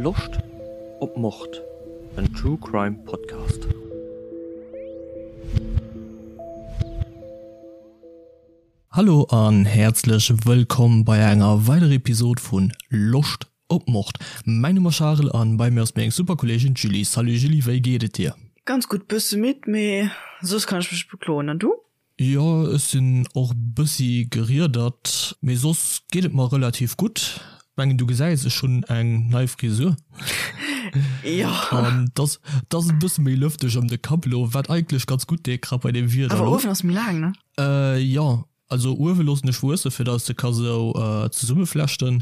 Loscht op Mord? En True Crime Podcast. Hallo an häerzlech wëllkomm bei enger weiderer Episod vun Loscht op Mord. Mäin Numm ass Charel an bei mir ass meng super Kolleegin d'Julie. Salut Julie, wéi geet et dir? Ganz gutt, bësse midd, mee soss kann ech mech net bekloen. An du? Jo, ech sinn och bëssi geriedert, mee soss geet et mer relativ gutt. Mengen du gesäis, ech hunn eng nei Frisur. Jo. An dass dass et bësse méi lëfteg ëm de Kapp elo, wat eigentlech ganz gutt deet, grad bei deem Wieder Awer elo. uewen ass méi laang, ne? Jo, also uewe loossen ech wuesse fir dass ech se ka sou zesummeflechten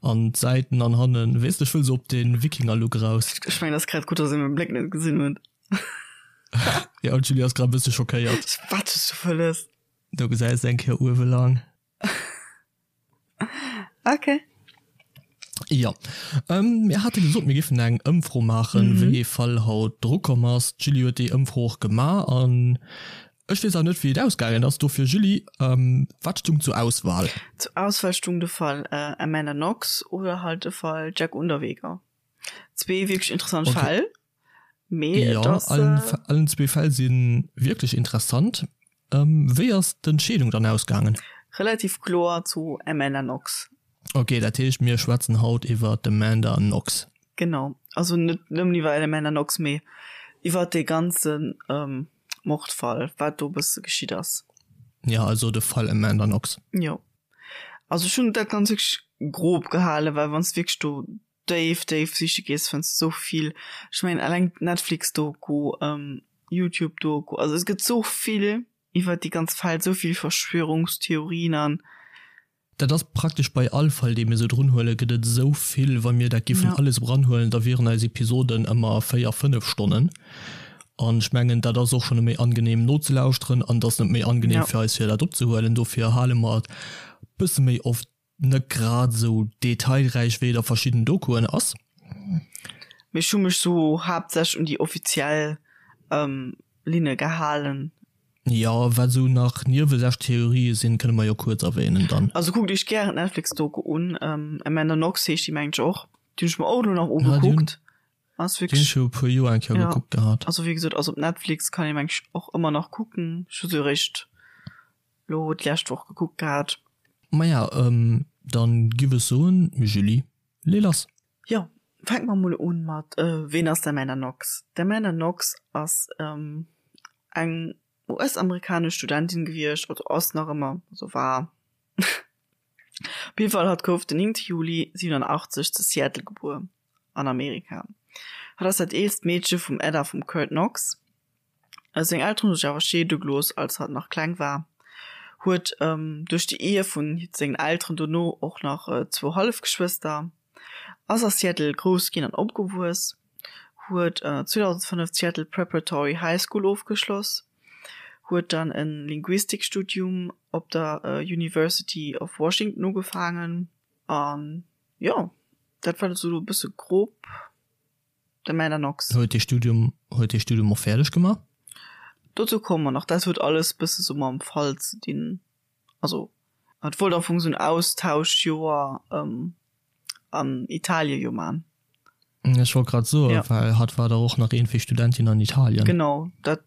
an d'Säiten an hannen, weess de, ech wëll sou op de Wikinger-Look eraus. Ech mengen, et ass grad gutt, dass ee mäi Bléck net gesinn huet. Ja, an d'Julie ass grad e bësse schockéiert. Wat hues du wëlles? Do gesäis de eng Kéier uewe lang. Okay. Jo. Mir hate gesot, mir géifen eng Ëmfro maachen, wéi ee Fall haut drukomm ass. D'Julie huet déi Ëmfro och gemaach an ech weess awer net, wéi et ausgaangen ass. Dofir, Julie, wat stung zur Auswahl? Zur Auswahl stung de Fall Amanda Knox oder halt de Fall Jack Unterweger. Zwee wierklech interessant Fäll. Mee et ass. Jo, allen zwee Fäll si wierklech interessant. Wéi ass d'Entscheedung dann ausgaangen? Relativ kloer zu Amanda Knox. Ok, dat heescht mir schwätzen haut iwwer d'Amanda Knox. Genau, also net nëmmen iwwer Amanda Knox, mee iwwer dee ganze Mordfall, wat do e bësse geschitt ass. Jo, also de Fall Amanda Knox. Jo, also ech hunn dat ganz wierklech grob gehalen, well wann s de wierklech do déif déif siche gees fënns de sou vill. Ech mengen eleng d'Netflix Doku, Youtube Doku, also et gëtt sou vill iwwert déi ganz Fäll, sou vill Verschwörungstheorien an. Dat ass praktesch bei all Fall dee mir sou drun huelen, gëtt et esou vill. Wa mir dat giffen alles eranhuelen, da wieren eis Episoden ëmmer 4, 5 Stonnen. An ech mengen dat ass och schonn net méi angenehm nozelauschteren an et ass net méi angenehm fir eis fir dat opzehuelen. Dofir hale mer et bësse méi oft net grad esou detailräich wéi et a verschidden Dokuen ass. Mee ech hu mech sou haaptsächlech un déi offiziell Linne gehalen. Jo, wat esou nach niewesäch Theorië sinn, kënne mer jo kuerz erwähnen dann. Also kuckt iech gären d'Netflix-Doku un, Amanda Knox heescht déi mengen ech och. Déi hunn ech mer och elo nach ugekuckt. Ass wierklech. Déi hunn ech viru puer Joer eng Kéier gekuckt gehat. Also wéi gesot, ass op Netflix, kann ee mengen ech och ëmmer nach kucken. Ech hu se eréischt Lo d'lescht Woch gekuckt gehat. Maja, dann giff ech soen, Julie, lee lass! Jo, fänke mer mol un mat Ween ass d'Amanda Knox? D'Amanda Knox ass eng US-amerikanesch Studentin gewiescht, also ass nach ëmmer, also war. Op jidde Fall, hatt gouf den 9 Juli 87 zu Seattle gebuer, an Amerika. Hatt ass dat eelst Meedche vum Ed a vum Kurt Knox. Seng Elteren hu sech awer scheede gelooss, als hatt nach kleng war, huet duerch déi Ehe vu sengen Elteren dono och nach zwou Hallefgeschwëster, ass a Seattle grouss ginn an opgewuess, huet 2005 d'Seattle Preparatory High School ofgeschloss, huet dann e Linguistikstudium op der University of Washington ugefaangen an jo, dat war esou e bësse grob. De Amanda Knox. Huet dee Studium, huet dee Studium och fäerdeg gemaach? Dozou komme mer nach. Dat huet alles bësse sou mam Fall ze dinn. Also et wollt am Fong sou en Austauschjoer an Italie jo man. Ech wollt grad soen, ja. Well hatt war dach och nach iergendwéi Studentin an Italien. Genau, dat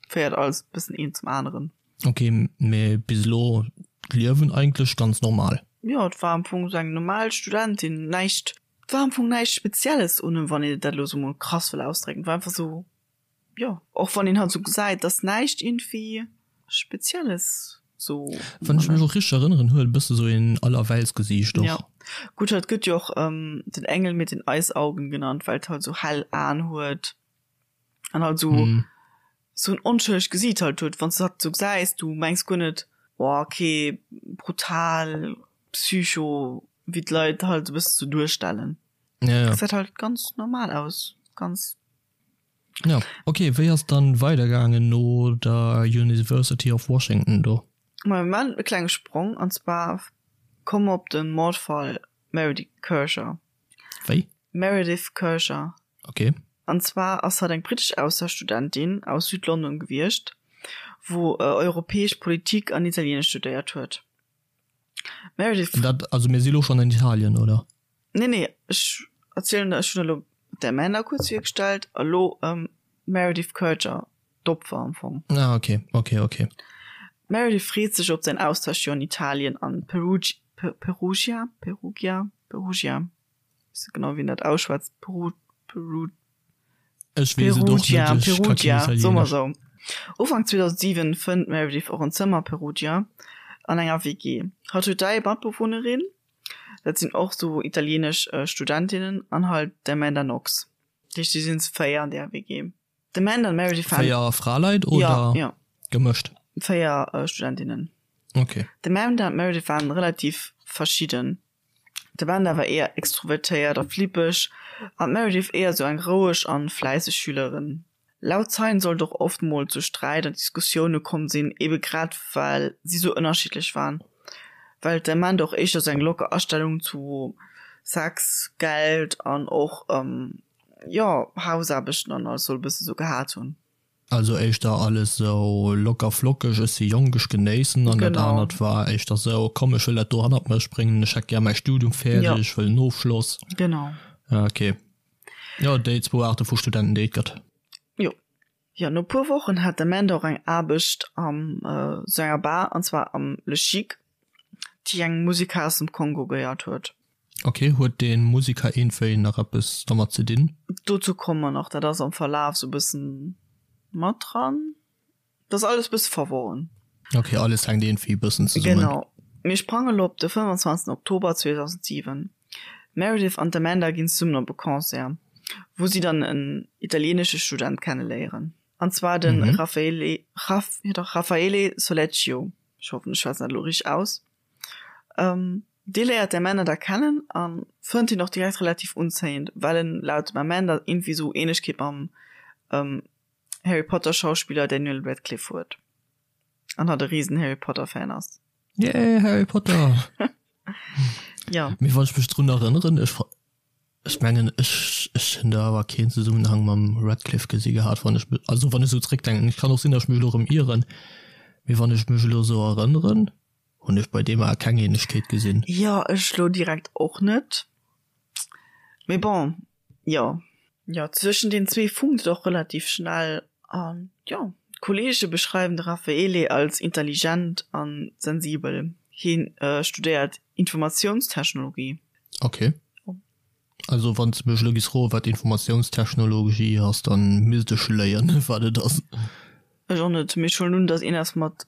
féiert alles bëssen eent zum aneren. Ok, mee bis elo d'Liewen eigentlech ganz normal? Jo, et war am Fong sou eng normal Studentin, näischt Et war am Fong näischt Spezielles un em, wann een dat elo sou mol krass wëll ausdrécken. Et war einfach sou, jo, och wann een halt sou gesäit, dass näischt iergendwéi Spezielles sou. Wann ech mech och richteg erënneren, huet e bësse sou een Allerweltsgesiicht och. Jo, gutt, hatt gëtt jo och den Engel mit den Eisaugen genannt, well et halt sou hell Aen huet an halt sou sou en onschëllegt Gesiit halt huet. Wann s de hatt sou gesäis, du mengs guer net, oh okay, brutal, Psycho, wéi d'Leit halt e bësse sou duerstellen. Ja, ja. Gesäit halt ganz normal aus, ganz. Ja, okay, wéi ass dann weidergaangen no der University of Washington do? Ma mir maachen e klenge Sprong, an zwar komme mer op de Mordfall Meredith Kercher. Wéi? Meredith Kercher. Okay. An zwar ass hatt eng brittesch Austauschstudentin aus Südlondon gewiescht, wou europäesch Politik an Italieenesch studéiert huet. Meredith. Dat, also mir si lo schonn an Italien, oder? Nee, nee, ech. erzielen ech hunn elo d'Amanda kuerz virgestallt, elo d'Meredith Kercher, d'Opfer am Fong. Ah ok, ok, ok. D'Meredith freet sech op säin Austauschjoer an Italien an Perugia, Perugia, Perugia, Perugia, weess net genau wéi een dat ausschwätzt, Peru, Peru, Ech weess et och Perugia, net, ech ka keen Perugia, soe mer Italienesch. sou. Ufank 2007 fënnt d'Meredith och en Zëmmer a Perugia an enger WG. Hatt huet 3 Matbewunnerin, dat sinn och sou italienesch Studentinnen an halt d'Amanda Knox. Dat heescht, si sinn zu 4 an där WG. D'Amanda an d'Meredith waren. 4 Fraleit oder ja, ja. gemëscht? 4 Studentinnen. Okay. D'Amanda an d'Meredith waren relativ verschidden. D'Amanda war éier extrovertéiert a flippeg an d'Meredith éier sou eng roueg an fläisseg Schülerin. Laut Zeien soll et och oft mol zu Sträit an Diskussioune komm sinn, ebe grad well si sou ënnerschiddlech waren. Well d'Amanda och éischter sou eng locker Astellung zu Sex, Geld an och, jo, Hausaarbechten an alles soll e bësse sou gehat hunn. Also éischter alles sou locker flockeg, ech si jonk, ech genéissen an dat anert war éischter sou, komm ech wëll dat do hannert mech bréngen, ech hätt gär mäi Studium fäerdeg, ech wëll en Ofschloss. Genau. Ok. Jo, déi zwou Aarte vu Studenten, déi et gëtt. Jo. Jo, no puer Wochen hat d'Amanda och eng Aarbecht am sou enger Bar, an zwar am Le Chic, déi engem Musiker aus dem Kongo gehéiert huet. Ok, huet dee Musiker iergendwéi nach eppes domat ze dinn? Dozou komme mer nach, dat ass am Verlaf sou e bëssen mat dran. Dat ass alles e bësse verworren. Ok, alles hänkt iergendwéi e bëssen zesummen. Genau. Mir sprange lo op de 25 Oktober 2007. D'Meredith an d'Amanda ginn zesummen op e Concert, wou si dann en italienesche Student kenneléieren, an zwar de Raffaele, Raff, jo dach, Raffaele Sollecchio. Ech hoffen, ech schwätzen dat elo richteg aus. Dee léiert d'Amanda da kennen a fënnt hien och direkt relativ unzéiend, well en laut dem Amanda iergendwéi sou Ähnlechkeet mam Harry Potter Schauspiller Daniel Radcliffe huet an hatt e risen Harry Potter Fan ass. Yay, Harry Potter! Jo. Mee wann ech mech drun erënneren, ech ech mengen ech ech hunn do awer keen Zesummenhang mam Radcliffe gesi gehat, wann ech also wann ech sou zréckdenken. Et kann och sinn, datt ech mech elo erëm ieren, mee wann ech mech elo sou erënneren, Hunn ech bei deem awer keng Ähnlechkeet gesinn. Jo, ech lo direkt och net. Mee bon, jo. Jo, zwëschen den zwee funkt et och relativ schnell an jo, d'Kollege beschreiwen de Raffaele als intelligent an sensibel. Hien studéiert Informatiounstechnologie. Ok. Also wann s de mech elo giss froen, wat Informatiounstechnologie ass, dann misst ech léien, wat et ass. Ech och net, mee ech huelen un, dass een ass mat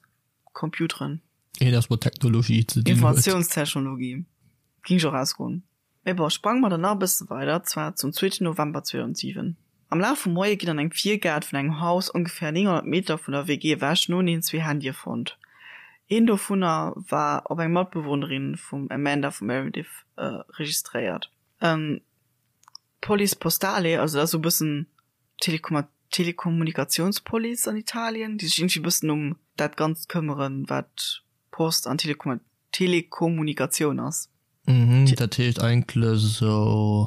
Computeren. Een ass mat Technologie ze dinn huet. Informatiounstechnologie, ging ech och ausgoen. Mee bon, sprange mer dann nach e bësse weider, zwar zum zweeten November 2007. Am Laf vum Moie ginn an engem Virgaart vun engem Haus ongeféier 900 Meter vun der WG ewech noeneen zwee Handye fonnt. Een dovunner war op eng Matbewunnerin vum Amanda vu Meredith registréiert. D'Police Postale, also dat ass esou e bëssen Telekommunikatiounspolice an Italien, déi sech iergendwéi e bëssen um dat Ganzt këmmeren, wat Post an Telekommunikatioun ass. Mhm, dat heescht eigentlech esou.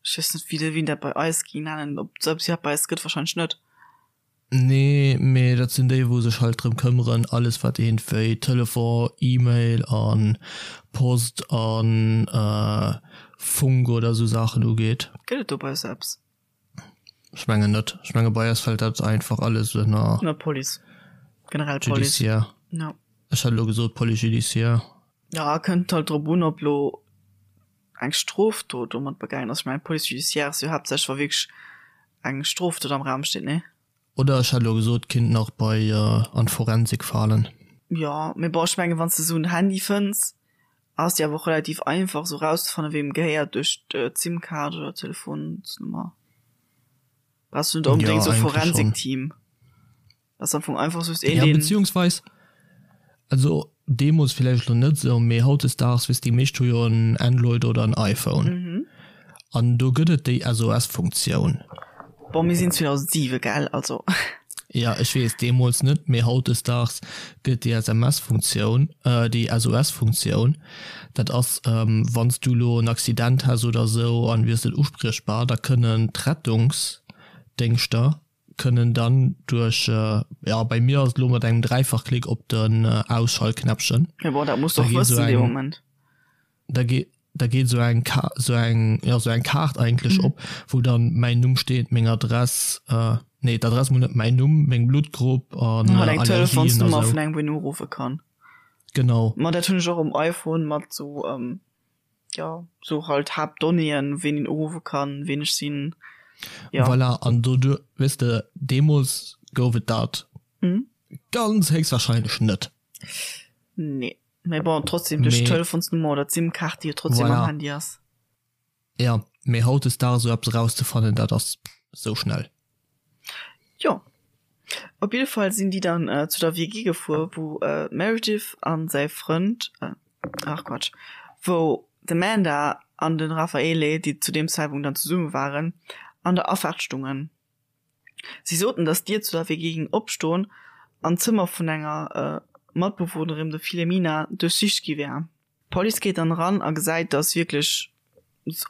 Ech weess net, wéi een dat bei eis géing nennen, ob et dat bei eis gëtt, warscheinlech net. Nee, mee dat sinn déi, wou sech halt drëm këmmeren, alles wat iergendwéi Telefon, E-Mail a Post a Funk oder esou Saachen ugeet. Gëtt et do bei eis eppes? Ech mengen net. Ech menge bei eis fält dat einfach alles ënner. Ënner Police. Generell Police. Judiciaire. Ja. Ech hat elo gesot Police judiciaire. Ja, kënnt halt drop un, ob lo eng Strofdot domat begaangen ass. Ech mengen Police judiciaire ass jo haaptsächlech wa wierklech eng Strofdot am Raum steet, nee? Oder ech hat elo gesot, kinnt nach bei an d'Forensik falen. Jo, mee bon, ech mengen wann s de esou en Handy fënns, Ass jo awer och relativ einfach sou rauszefannen weem gehéiert duerch d'Sim-Kaart oder d'Telefonsnummer. Brauchs du net onbedéngt sou Forensik-Team. Ass am Fong einfach just een deen. Ja beziehungsweis, also deemols villäicht lo net sou, mee hautdesdaags weess déi meescht hu jo en Android oder en iPhone an do gëtt et déi SOS-Funktioun. Bon mir sinn 2007 gell, also. Jo, ech weess, deemools net, mee hautdesdaags gëtt déi SMS-Funktioun, déi SOS-Funktioun, dat ass, wann s du elo en Accident häss oder esou an wiers net uspriechbar, da kënnen d'Rettungsdéngschter kënnen dann duerch, jo, bei mir ass et elo mat engem Dräifachklick op den Ausschaltknäppchen, Jo, bon, dat muss de och wëssen dee Moment. Da gi. Da geet esou eng Ka esou eng, jo, esou eng Kaart eigentlech op, wou dann mäin Numm steet, meng Adress, nee, d'Adress mol net, mäin Numm, meng Bluttgrupp an Halt eng Allergien a Telefonsnummer sou. vun engem, wou een uruffe kann. Genau. Ma dat hunn ech och um iPhone mat sou, jo, sou halt Haaptdonnéeën, ween een uruffe kann, ween ech sinn, jo. Voilà, an doduer, weess de, deemools gouf et dat ganz héchstwahrscheinlech net. Nee. Mee bon, trotzdem duerch d'Telefonsnummer oder d'SIM-Kaart, déi jo trotzdem am Voilà. Handy ass. Ja, mee hautdesdaags esou eppes erauszefannen, dat ass sou schnell. Jo. Op jidde Fall sinn déi dann zu der WG gefuer, wou d'Meredith a säi Frënd, ach Quatsch, wou d'Amanda an de Raffaele, déi zu deem Zäitpunkt dann zesumme waren, an der Afaart stungen. Si soten, datt d'Dier zu der WG géing opstoen an d'Zëmmer vun enger Matbewunnerin, der Filemina, duerchsicht gi wär. D'Police geet dann eran a gesäit, datt wierklech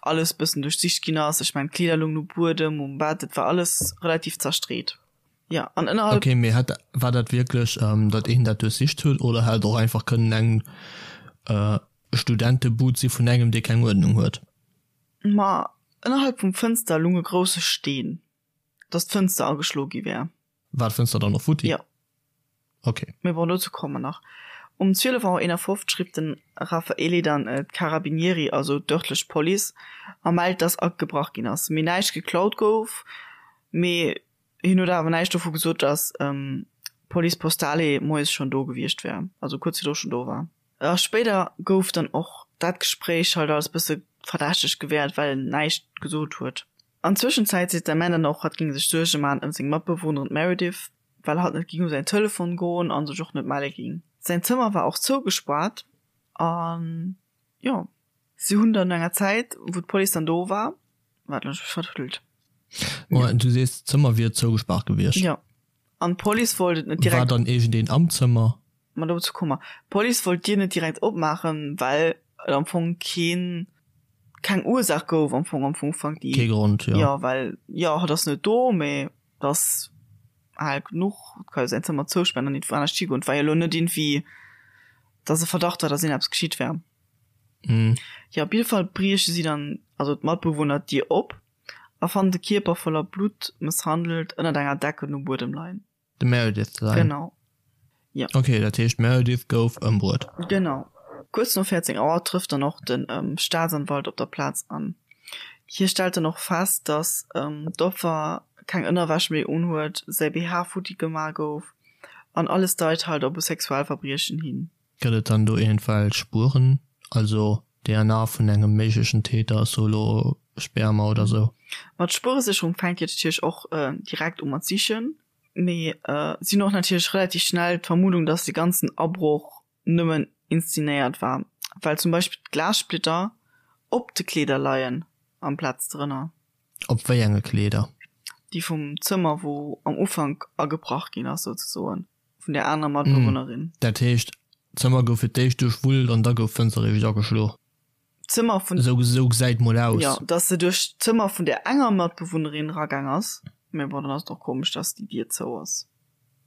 alles bëssen duerchsicht ginn ass. Ech mengen, d'Kleeder loungen um Buedem, um Bett, et war alles relativ zerstreet. Jo, an ënnerhalb. Ok, mee hat, war dat wierklech, datt een dat duerchsicht huet oder hätt et och einfach kënnen eng Studentebud si vun engem, dee keng Uerdnung huet? Ma ënnerhalb vum Fënster lung e grousse Steen, dass d'Fënster ageschlo gi wär. War d'Fënster dann och futti? Jo. Ok. Mee bon, dozou komme mer nach. Um 12 Auer 51 rifft den Raffaele dann d'Carabinieri, also d'örtlech Police, a mellt, dass agebrach ginn ass, mee näischt geklaut gouf. Mee hien huet awer näischt dovu gesot, dass d'Police Postale moies schonn do gewiescht wär, also kuerz virdru schonn do war. A spéider gouf dann och dat Gespréich halt als bësse verdächteg gewäert, well en näischt gesot huet. An Zwëschenzäit seet d'Amanda dann och, hatt géing sech Suerge man ëm seng Matbewunnerin d'Meredith, well hatt net géing u säin Telefon goen a sech och net melle géing. Säin Zëmmer war och zougespaart an jo, si hunn dann no enger Zäit, wou d'Police dann do war, waart, elo hunn ech mech vertrëllt. Moment, du sees d'Zëmmer wier zougespaart gewiescht? Jo, an d'Police wollt et net direkt. War dann iergendeen am Zëmmer? Ma dozou komme mer. D'Police wollt d'Dier net direkt opmaachen, well et am Fong keen, keng Ursaach gouf am Fong am Ufank, déi. Kee Grond, jo. Jo, well, jo, hatt ass net do, mee et ass al genuch, et ka jo säin Zëmmer zouspaaren an iergendwou anescht higoen. Et war jo elo net iergendwéi, dass e Verdacht war, dass iergendeppes geschitt wär. Jo, op jidde Fall brieche si dann, also d'Matbewunner, d'Dier op a fannen de Kierper voller Blutt, mësshandelt, ënnert enger Decken um Buedem leien. De Meredith sein. Genau. Jo. Ok, dat heescht d'Meredith gouf ëmbruet. Genau. Kuerz no 14 Auer trëfft dann och de Staatsanwalt op der Plaz an. Hie stellt dann och fest, datt d'Opfer keng Ënnerwäsch méi unhuet, säi BH futti gemaach gouf an alles deit halt op e Sexualverbriechen hin. Gëtt et dann do iergendwelch Spueren, also DNA vun engem méiglechen Täter, so elo Sperma oder sou? Ma d'Spueresécherung fänkt jo natierlech och direkt u mat sichen, mee si hunn och natierlech relativ schnell d'Vermuddung, dass de ganzen Abroch nëmmen inszenéiert war, well zum Beispill d'Glassplitter op de Kleeder leien amplaz drënner. Op wéi enge Kleeder? Déi vum Zëmmer, wou am Ufank agebrach ginn ass, souzesoen. Vun der anerer Matbewunnerin. Dat heescht, d'Zëmmer gouf fir d'éischt duerchwullt an da gouf d'Fënster eréischt ageschlo? D'Zëmmer vun. Esou, esou gesäit mol aus. Jo, dass se duerch d'Zëmmer vun der enger Matbewunnerin eragaang ass. Mee bon, dann ass et och komesch, dass déi Dier zou ass,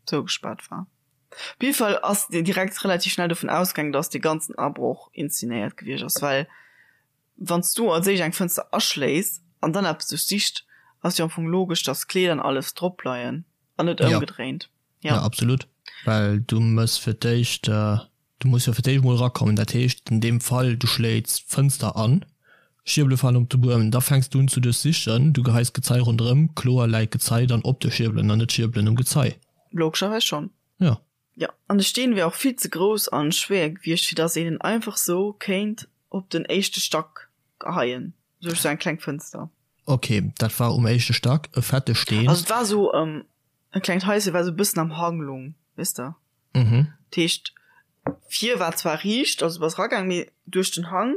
zougespaart war. Op jidde Fall ass direkt relativ schnell dovun ausgaangen, dass dee ganzen Abroch inszenéiert gewiescht ass, well wann s du als éischt eng Fënster aschléiss an dann eppes duerchsicht, ass jo am Fong logesch, dass d'Kleeder an alles drop leien an net ëmgedréint. Ja. Ja, absolut. Well du mëss fir d'éischt, du muss jo fir d'éischt mol erakommen. Dat heescht an deem Fall, du schléits d'Fënster an, Schierbele falen op de Buedem, da fänks du un ze duerchsichen, du geheis d'Gezei ronderëm, kloer läit d'Gezei dann op de Schierbelen an net d'Schierbelen um Gezei. Logescherweis schonn. Ja. Jo, an de Steen wär och vill ze grouss an schwéier gewiescht, fir dass een en einfach sou kéint op den éischte Stack geheien, duerch sou eng kleng Fënster. Ok, dat war um éischte Stack e fette Steen. Also et war sou e klengt Haische, war sou e bëssen am Hang lung, weess de. Mhm. Dat heescht, vir war zwar riicht, also du bass eragaang, mee duerch den Hang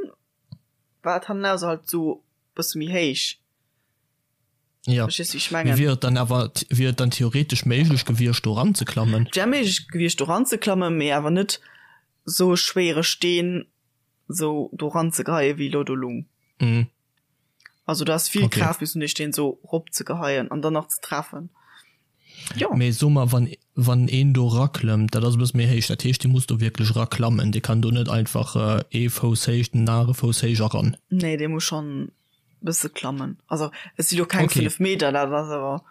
war et hannenaus halt sou e bësse méi héich. Ja. Verstees du, wéi ech mengen? Mee wier et dann awer, wier et dann theoretesch méiglech gewiescht do eranzeklammen? Et wär méiglech gewiescht do eranzeklammen, mee awer net sou e schwéiere Steen sou do eranzegeheien, wéi elo do lung. Mhm. Also du has vill okay. Kraaft missen dee Steen sou rop ze geheien an dann nach ze treffen. Jo. Mee so mer, wann, wann een do raklëmmt, dat ass e bësse méi héich, dat heescht, dee muss do wierklech raklammen, dee kann do net einfach ee Fouss héich, den anere Fouss héich eran. Nee, dee muss schonn e bësse klammen. Also et si lo keng Okay. 5 Meter, dat ass awer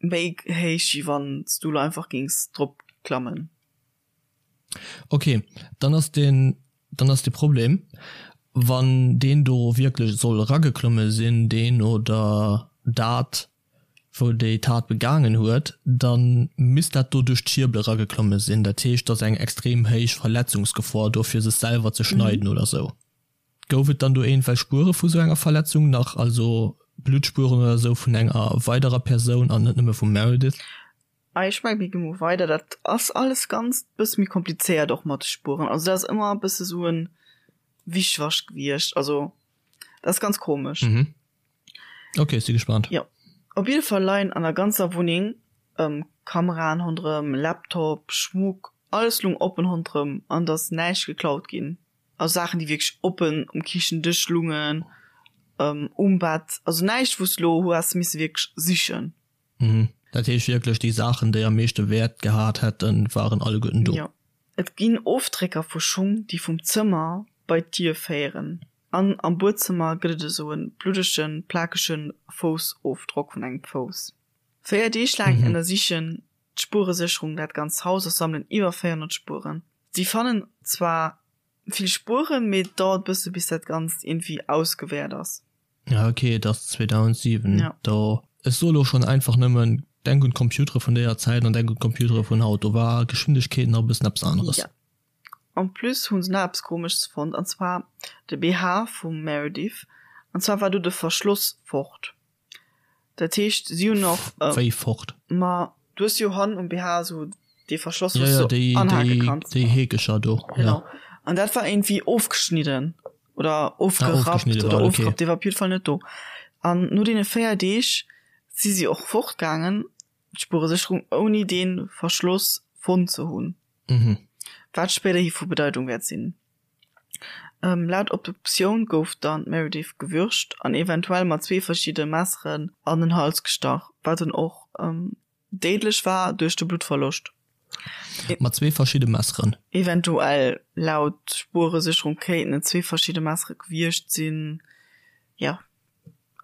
méi héich, wéi wann s du lo einfach géings drop klammen. Ok, dann ass den, dann ass de Problem, wann deen do wierklech soll erageklomme sinn, deen oder dat, wou déi Tat begaangen huet, da misst dat do duerch d'Schierbel erageklomme sinn. Dat heescht, et ass eng extrem héich Verletzungsgefor do fir sech selwer ze schneiden oder sou. Gouf et dann do iergendwelch Spuere vu sou enger Verletzung nach, also Bluttspueren oder sou vun enger weiderer Persoun an net nëmme vum Meredith? Ah ech mengen mir gi mol weider, dat ass alles ganz bësse méi komplizéiert och mat de Spueren, also dat ass ëmmer e bësse sou en Wischwasch gewiescht, also dat ass ganz komesch. Mhm. Ok, ech si gespannt. Jo, op jidde Fall leien an der ganzer Wunneng Kameraen ronderëm, Laptop, Schmuck, alles lung oppen ronderëm an et ass näischt geklaut ginn. Also Saachen déi wierklech oppen um Kichendësch lungen, um Bett, also näischt wou s de lo hues misse wierklech sichen. Mhm. Dat heescht wierklech, déi Saachen, déi am meeschte Wäert gehat hätten, waren alleguerten do. Jo. Et ginn Ofdrécker vu Schung, déi vum Zëmmer bei d'Dier féieren. An am Buedzëmmer gëtt et esou e bluddegen, plakege Foussofdrock vun engem Fouss. 4 Deeg laang ënnersichen d'Spueresécherung dat ganzt Haus a sammelen iwwer 400 Spueren. Si fannen zwar vill Spueren, mee et dauert bësse bis dat Ganzt iergendwéi ausgewäert ass. Ja ok, et ass 2007, Ja. do. Ech soe lo schonn einfach nëmmen, denk un d'Computere vun déier Zäit an denk un d'Computere vun haut, do war Geschwindegkeet nach e bëssen eppes aneres. Ja. En plus hu se nach eppes Komesches fonnt, an zwar de BH vum Meredith, an zwar war do de Verschloss fort. Dat heescht si hunn och. Wéi fort? Ma du hues jo hannen um BH esou dee Verschloss, wou s du anhake kanns. Déi Heekecher do, jo. Genau. An dat war iergendwéi ofgeschnidden oder ofgerappt oder ofgerappt, dee war op jidde Fall net do. An no deene 4 Deeg si si och fortgaangen, d'Spueresécherung, ouni dee Verschloss fonnt ze hunn. Wat spéiderhi vu Bedeitung wäert sinn. Laut Obduktioun gouf dann d'Meredith gewürgt an eventuell mat zwee verschidde Messeren an den Hals gestach, wat dann och déidlech war duerch de Bluttverloscht. Mat zwee verschidde Messeren? Eventuell, laut Spueresécherung kéinten et zwee verschidde Messere gewiescht sinn, jo.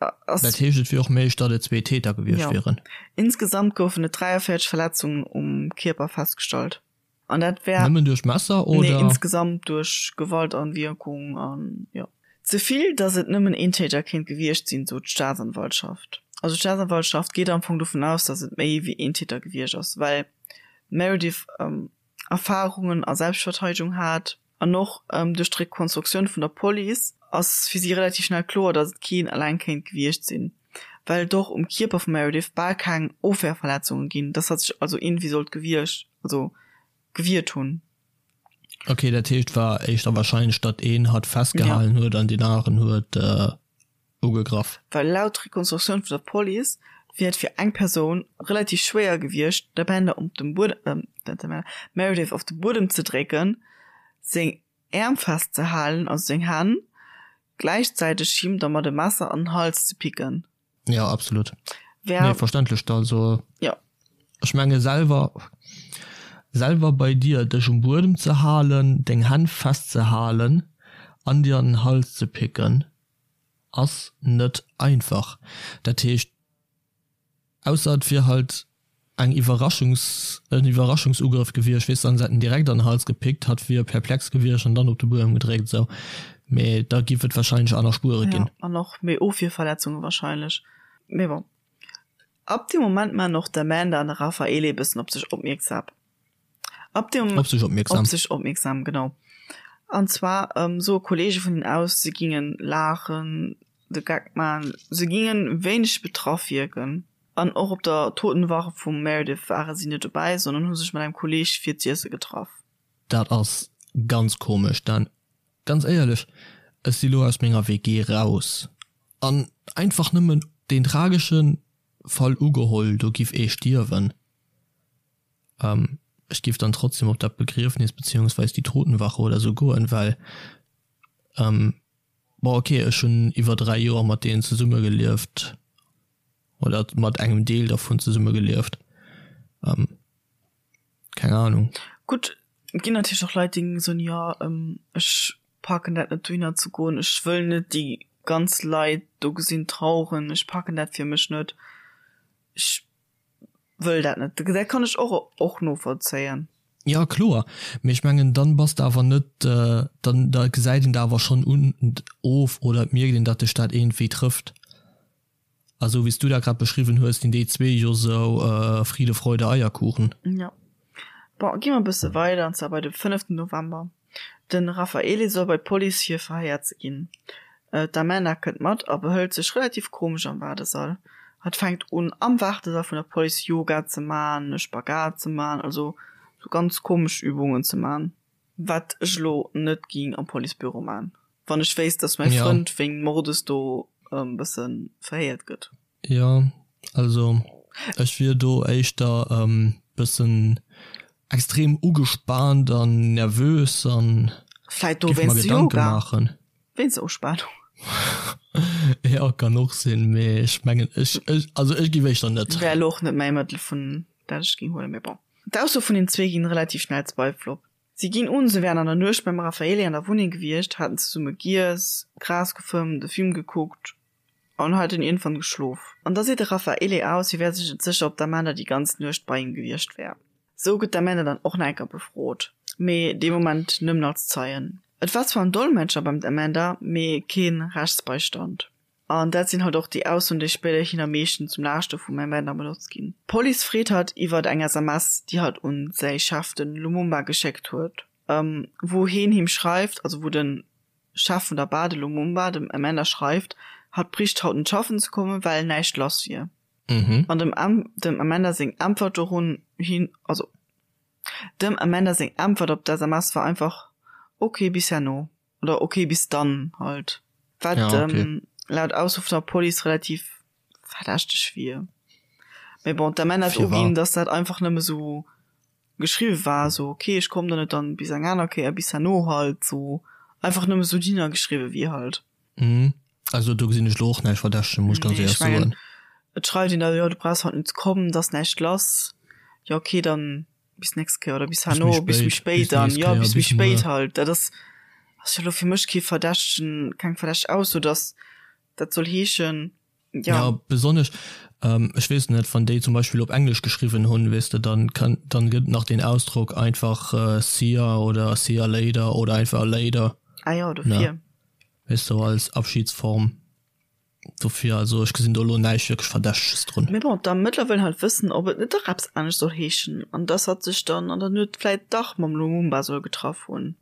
Dat heescht, et wier och méiglech, datt et zwee Täter gewiescht wieren? Insgesamt goufen et 43 Verletzungen um Kierper festgestallt. An dat wär. Nëmmen duerch Messer oder? Nee, insgesamt duerch Gewaltanwierkung an jo. Ze vill, datt et nëmmen een Täter kéint gewiescht sinn, sot d'Staatsanwaltschaft. Also d'Staatsanwaltschaft geet am Fong dovun aus, datt et méi wéi een Täter gewiescht ass, well d'Meredith Erfarungen a Selbstverteidegung hat an och duerch d'Rekonstruktioun vun der Police ass fir si relativ schnell kloer, datt et keen eleng kéint gewiescht sinn, well et och um Kierper vum Meredith bal keng Ofwehrverletzunge ginn, datt hatt sech also iergendwéi sollt gewiescht, also gewiert hunn. Ok, dat heescht war éischter warscheinlech, datt een hatt festgehalen huet an deen aneren huet ugegraff. Well laut Rekonstruktioun vun der Police wier et fir eng Persoun relativ schwéier gewiescht, d'Amanda op dem Buedem, d'Meredith op de Buedem ze drécken, seng Äerm festzehalen, also seng Hänn, gläichzäiteg him da mat e Messer an den Hals ze picken. Jo, absolut. Wär. Nee, verständlech. Also, jo. Ech menge selwer, selwer bei dir, dech um Buedem ze halen, deng Hänn festzehalen an dir an den Hals ze picken, ass net einfach. Dat heescht, ausser et wier halt eng Iwwerraschungs, en Iwwerraschungsugrëff gewiescht, weess de, an se hätten direkt an den Hals gepickt, hatt wier perplex gewiescht an dann op de Buedem gedréckt esou, mee da giff et wahrscheinlech aner Spuere ginn. Jo, an och méi Ofwierverletzunge wahrscheinlech. Mee bon, ab deem Moment maachen och d'Amanda an de Raffaele e bëssen op sech opmierksam. Ab dem Op sech opmierksam. Op sech opmierksam, genau. An zwar soe Kolleege vun hinnen aus, se gingen laachen, de Geck man, se gingen wéineg betraff wierken. An och op der Totenwache vum Meredith ware si net dobäi, sondern hu sech mat engem Kolleeg fir z'iesse getraff. Dat ass ganz komesch, Dan. Ganz éierlech, ech si lo aus menger WG raus an einfach nëmmen deen tragesche Fall ugeholl, do giff ee stierwen. Ech giff dann trotzdem op dat Begriefnis beziehungsweis déi Totenwache oder sou goen, well bon ok, ech hunn iwwer 3 Joer mat deenen zesummegelieft oder mat engem Deel dervun zesummegelieft. Keng Ahnung. Gutt, et ginn natierlech och Leit, déi soen, jo, ech packen dat net dohinner ze goen, ech wëll net déi ganz Leit do gesinn traueren, ech packen dat fir mech net, ech wëll dat net. Dat kann ech och och novollzéien. Jo, kloer, mee ech mengen, dann bass de awer net, dann da gesäit een der awer schonn un of oder et mierkt een, datt dech dat iergendwéi trëfft. A sou wéi s du dat grad beschriwwen hues, sinn déi zwee jo sou Friede, Freude, Eierkuchen. Jo. Bon, gi mer e bësse weider, an zwar bei de fënneften November. De Raffaele soll bei d'Police fir verhéiert ze ginn. D'Amanda kënnt mat a behëlt sech relativ komesch am Waardesall. Hatt fänkt un am Waardesall vun der Police Yoga ze man, e Spagat ze man, also sou ganz komesch Übungen ze man. Wat ech elo net ging am Policebüro man, wann ech wéisst, dass mäi Frënd wéingt Mordes do e bësse verhéiert gëtt. Jo, also ech wier do éischter e bëssen extrem ugespaant an nervös an Vläit do géif mer wéinst Gedanke Yoga, maachen. wéinst der Uspanung. Jo, kann och sinn, mee ech mengen ech, ech, also ech géif éischter net. Wär elo och net mäi Mëttel vun dat ech géing huelen, mee bon. D'Ausso vun den zwee ginn relativ schnell Zweifel op. Si ginn un, se wären an der Nuecht beim Raffaele an der Wunneng gewiescht, haten zesumme giess, Gras gefëmmt, e Film gekuckt an hätten iergendwann geschlof. An da seet de Raffaele aus, hie wär sech net sécher, ob d'Amanda déi ganz Nuecht bei him gewiescht wär. Sou gëtt d'Amanda dann och nach eng Kéier befrot, mee dee Moment nëmmen als Zeien. Et war zwar en Dolmetscher beim Amanda, mee kee Rechtsbeistand. An dat sinn halt och déi Aussoen, déi spéiderhin am meeschten zum Laaschte vum Amanda benotzt ginn. D'Police freet hatt iwwert eng SMS, déi hatt un säi Chef, de Lumumba, geschéckt huet, wou heen him schreift, also wou de Chef vun der Bar, de Lumumba, dem Amanda schreift, hatt bréicht haut net schaffen ze kommen, well näischt lass wier. An dem dem Amanda seng Äntwert dorun hin, also dem Amanda seng Äntwert op d'SMS war einfach, Ok, bis herno. Oder ok bis dann halt. Wat ja, okay. ähm, laut Ausso vun der Police relativ verdächteg wier. Mee bon, d'Amanda hat uginn, dass dat einfach nëmme sou geschriwwe war, sou ok, ech komm dann net dann bis eng aner Kéier, bis herno halt, sou einfach nëmme sou dinner geschriwwe wier halt. Mhm. Also do gesinn ech lo och näischt Verdächtegen, muss ech ganz Nee, éierlech ech mengen, soen. et schreift een da, jo du brauchs haut net ze kommen, et ass näischt lass, jo ok, dann bis nächst Kéier oder bis Bis méi herno, bis méi spéit, spéit bis dann, nächst jo Kéier, bis méi bis muer. spéit halt. Dat ass ass jo elo fir mech kee verdächtegen, keng verdächteg Ausso, dass dat soll heeschen, jo. Ja, besonnesch, ech weess net, wann déi zum Beispill op Englesch geschriwwen hunn, weess de, dann kann, dann gëtt nach den Ausdrock einfach see ya oder see ya later oder einfach later, Ah jo, ne, dofir. weess de, als Abschiedsform. Dofir, also ech gesinn do elo näischt wierklech Verdächteges drun. Mee bon, d'Ermëttler wëllen halt wëssen, ob et net dach eppes anescht soll heeschen an dass hatt sech dann an der Nuet vläit dach mam Lumumba soll getraff hunn.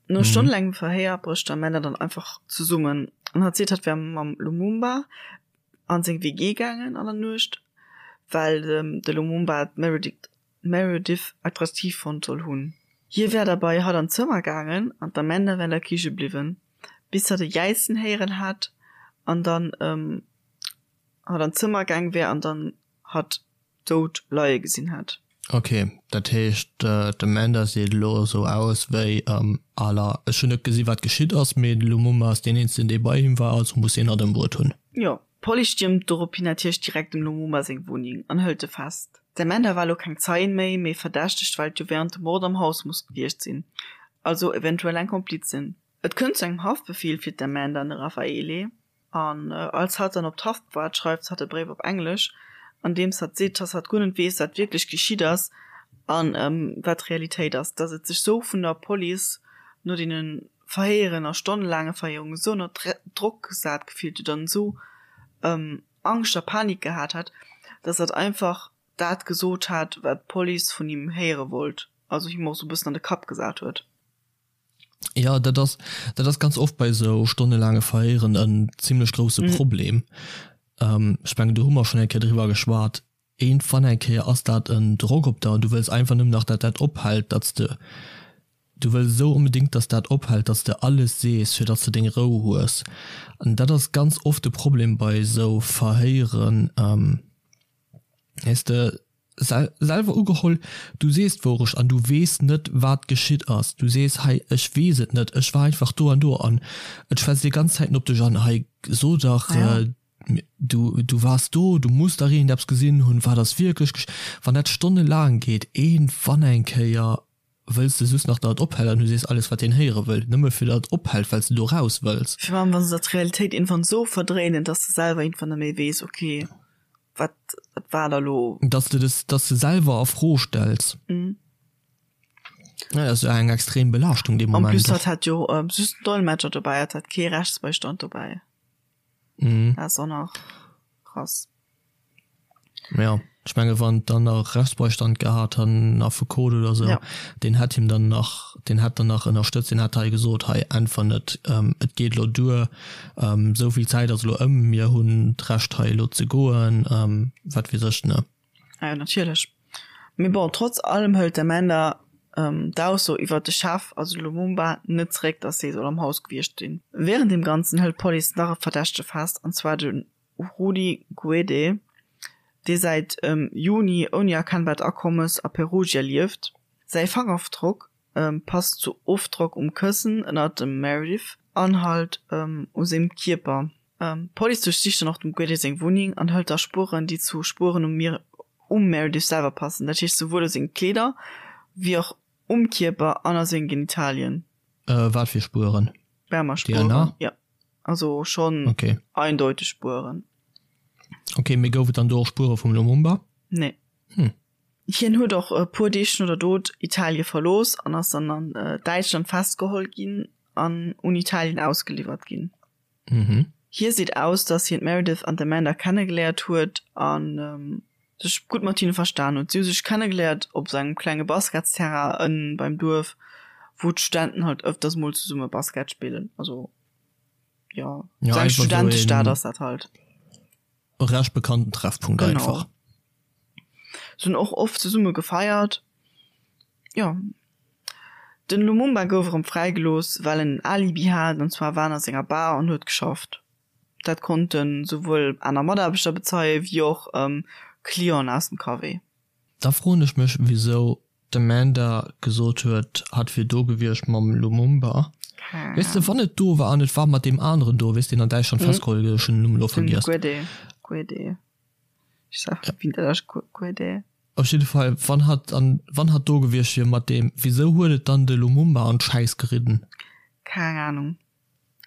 No stonnelaangem Verhéier brécht d'Amanda dann einfach zesummen an hatt seet, hatt wär mam Lumumba an seng WG gaangen an der Nuecht, well de Lumumba d'Meredith Meredith attraktiv fonnt soll hunn. Hie wär da bei hatt an d'Zëmmer gaangen an d'Amanda wär an der Kiche bliwwen, bis hatt e Jäizen héieren hätt an dann hatt an d'Zëmmer gaang wär an dann hatt dout leie gesinn hätt. Ok, dat heescht d'Amanda seet elo esou aus wéi à la ech hunn net gesi wat geschitt ass, mee de Lumumba ass deen eenzegen dee bei him war, also muss hien hatt ëmbruet hunn. Jo, D'Police stiermt dorophin natierlech direkt dem Lumumba seng Wunneng an hëlt e fest. D'Amanda war elo keng Zeien méi, mee verdächtegt, well et jo wärend dem Mord am Haus muss gewiescht sinn, also eventuell eng Komplizin. Et kënnt zu engem Haftbefeel fir d'Amanda an de Raffaele, an als hatt dann op d'Haft waart, schreift hatt e Bréif op Englesch, an deems hatt seet, dass hatt guer net weess, wat wierklech geschitt ass an wat d'Realitéit ass, dass et sech sou vun der Police no deene Verhéieren a stonnelaange Verhéierungen esou ënner Drock gesat gefillt huet an esou Angscht a Panik gehat hat, dass hatt einfach dat gesot hat, wat d'Police vun him héiere wollt, also him och esou e bëssen an de Kapp gesat huet. Jo, dat ass, dat ass ganz oft bei esou stonnelaange Verhéieren en zimlech grousse Problem. Ech mengen, do hu mer schonn eng Kéier driwwer geschwat. Iergendwann eng Kéier ass dat en Drock op der an du wëlls einfach nëmmen nach, datt dat ophält, datt s de, du wëlls esou onbedéngt, datt dat ophält, datt s de alles sees, fir datt s de deng Rou hues. An dat ass ganz oft de Problem bei esou Verhéieren, weess de, selwer ugeholl, du sees d'Wourecht an du weess net, wat geschitt ass. Du sees, hei, ech weess et net, ech war einfach do an do an et schwätzt déi ganz Zäiten op dech an, hei, so dach. Du, du waars do, du muss dach iergendeppes gesinn hunn, wat ass wierklech gesch. Wann dat stonnelaang geet, iergendwann eng Kéier wëlls de just nach, datt et ophält an du sees alles, wat deen héiere wëll, nëmme fir datt et ophält, well s de do raus wëlls. Virun allem, wa se der d'Realitéit iergendwann esou verdréinen, datt s de selwer iergendwann net méi weess, ok, wat, wat war da lo. Datt s de des, datt s de selwer a Fro stells. Ja, dat ass jo eng extrem Belaaschtung dee En Moment plus, och. hatt hat jo just den Dolmetscher dobäi, hatt hat kee Rechtsbeistand dobäi. Mhm. Dat ass och nach krass. Ja, ech menge wann dann nach Rechtsbeistand gehat han, Affekot oder sou, Ja. deen hätt him dann nach, deen hätt dann nach ënnerstëtzt, deen hätt hei gesot, hei äntwer net, et geet elo duer, esou vill Zäit ass elo ëm, mir hunn d'Recht hei elo ze goen, wat weess ech, ne. Ah jo, natierlech. Mee bon, trotz allem hëlt d'Amanda d'Ausso iwwert de Chef, also de Lumumba, net zeréck, dass dee soll am Haus gewiescht sinn. Wärend deem Ganzen hëlt d'Police nach e Verdächtege fest, an zwar de Rudi Guede, dee säit Juni ouni erkennbart Akommes a Perugia lieft. Säi Fangerofdrock passt zu Ofdrock um Këssen ënnert dem Meredith an halt u sengem Kierper. D'Police duerchsicht dann och dem Guede seng Wunneng an hëlt da Spueren, déi zu Spueren um um Meredith selwer passen, dat heescht souwuel u senge Kleeder wéi och um Kierper an a senge Genitalien. Wat fir Spueren? Spermaspueren, DNA? Jo, also schonn Okay. eindeuteg Spueren. Okay, mee gouf et dann do och Spuere vum Lumumba? Nee. Hm. Hien huet och e puer Deeg no der Dot Italie verlooss an ass dann an Däitschland festgeholl ginn an un Italien ausgeliwwert ginn. Mhm. Hie seet aus, datt hien d'Meredith an d'Amanda kennegeléiert huet a sech gutt mat hinne verstan huet. Si hu sech kennegeléiert op sou engem klenge Basketsterrain ënnen beim Duerf, wou d'Studenten halt ëfters mol zesumme Basket spillen. Also jo, Ja, sou eng einfach sou Studentestad een ass dat halt. recht bekannten Treffpunkt Genau. einfach. Se hunn och oft zesumme gefeiert. Jo. Den Lumumba gouf erëm fräigelooss, well en en Alibi hat, an zwar war en a senger Bar an huet geschafft. Dat konnte souwuel aner Mataarbechter bezeien, wéi och Clienten aus dem Café. Da froen ech mech wisou d'Amanda gesot huet hatt wier do gewiescht mam Lumumba. Weess de wann et do war an et war mat deem aneren do, weess deen an Däitschland festgeholl gëtt, ech hunn den Numm elo Den vergiess. Guede, Guede, ech sag wéi dat ass, Guede. Op jidde Fall wann hatt an wann hatt do gewiescht wier mat deem, wisou huet et dann de Lumumba an d'Schäiss geridden? Keng Ahnung,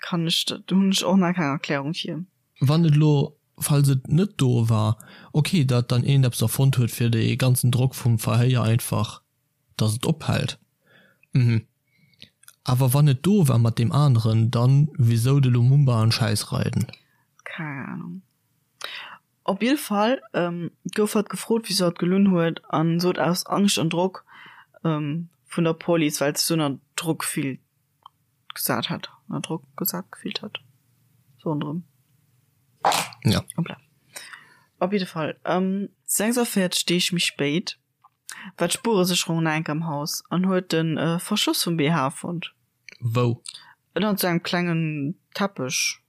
kann ech, do hunn ech och nach keng Erklärung fir. Wann et elo, falls et net do war, ok, datt dann een eppes erfonnt huet fir dee ganzen Drock vum Verhéier einfach, datt et ophält, mhm. Awer wann et do war mat deem aneren, dann wisou de Lumumba an d'Schäiss reiden? Keng Ahnung. Op jidde Fall gouf hatt gefrot, wisou hatt gelunn huet an sot aus Angscht an Drock vun der Police, well se sou ënner Drock fillt gesat hat, ënner Drock gesat gefillt hat, sou ronderëm. Ja. Hoppla. Op jidde Fall, 46 Deeg méi spéit war d'Spueresécherung nach eng Kéier am Haus an huet de Verschloss vum BH fonnt. Wou? Ënnert sou engem klengen Teppech.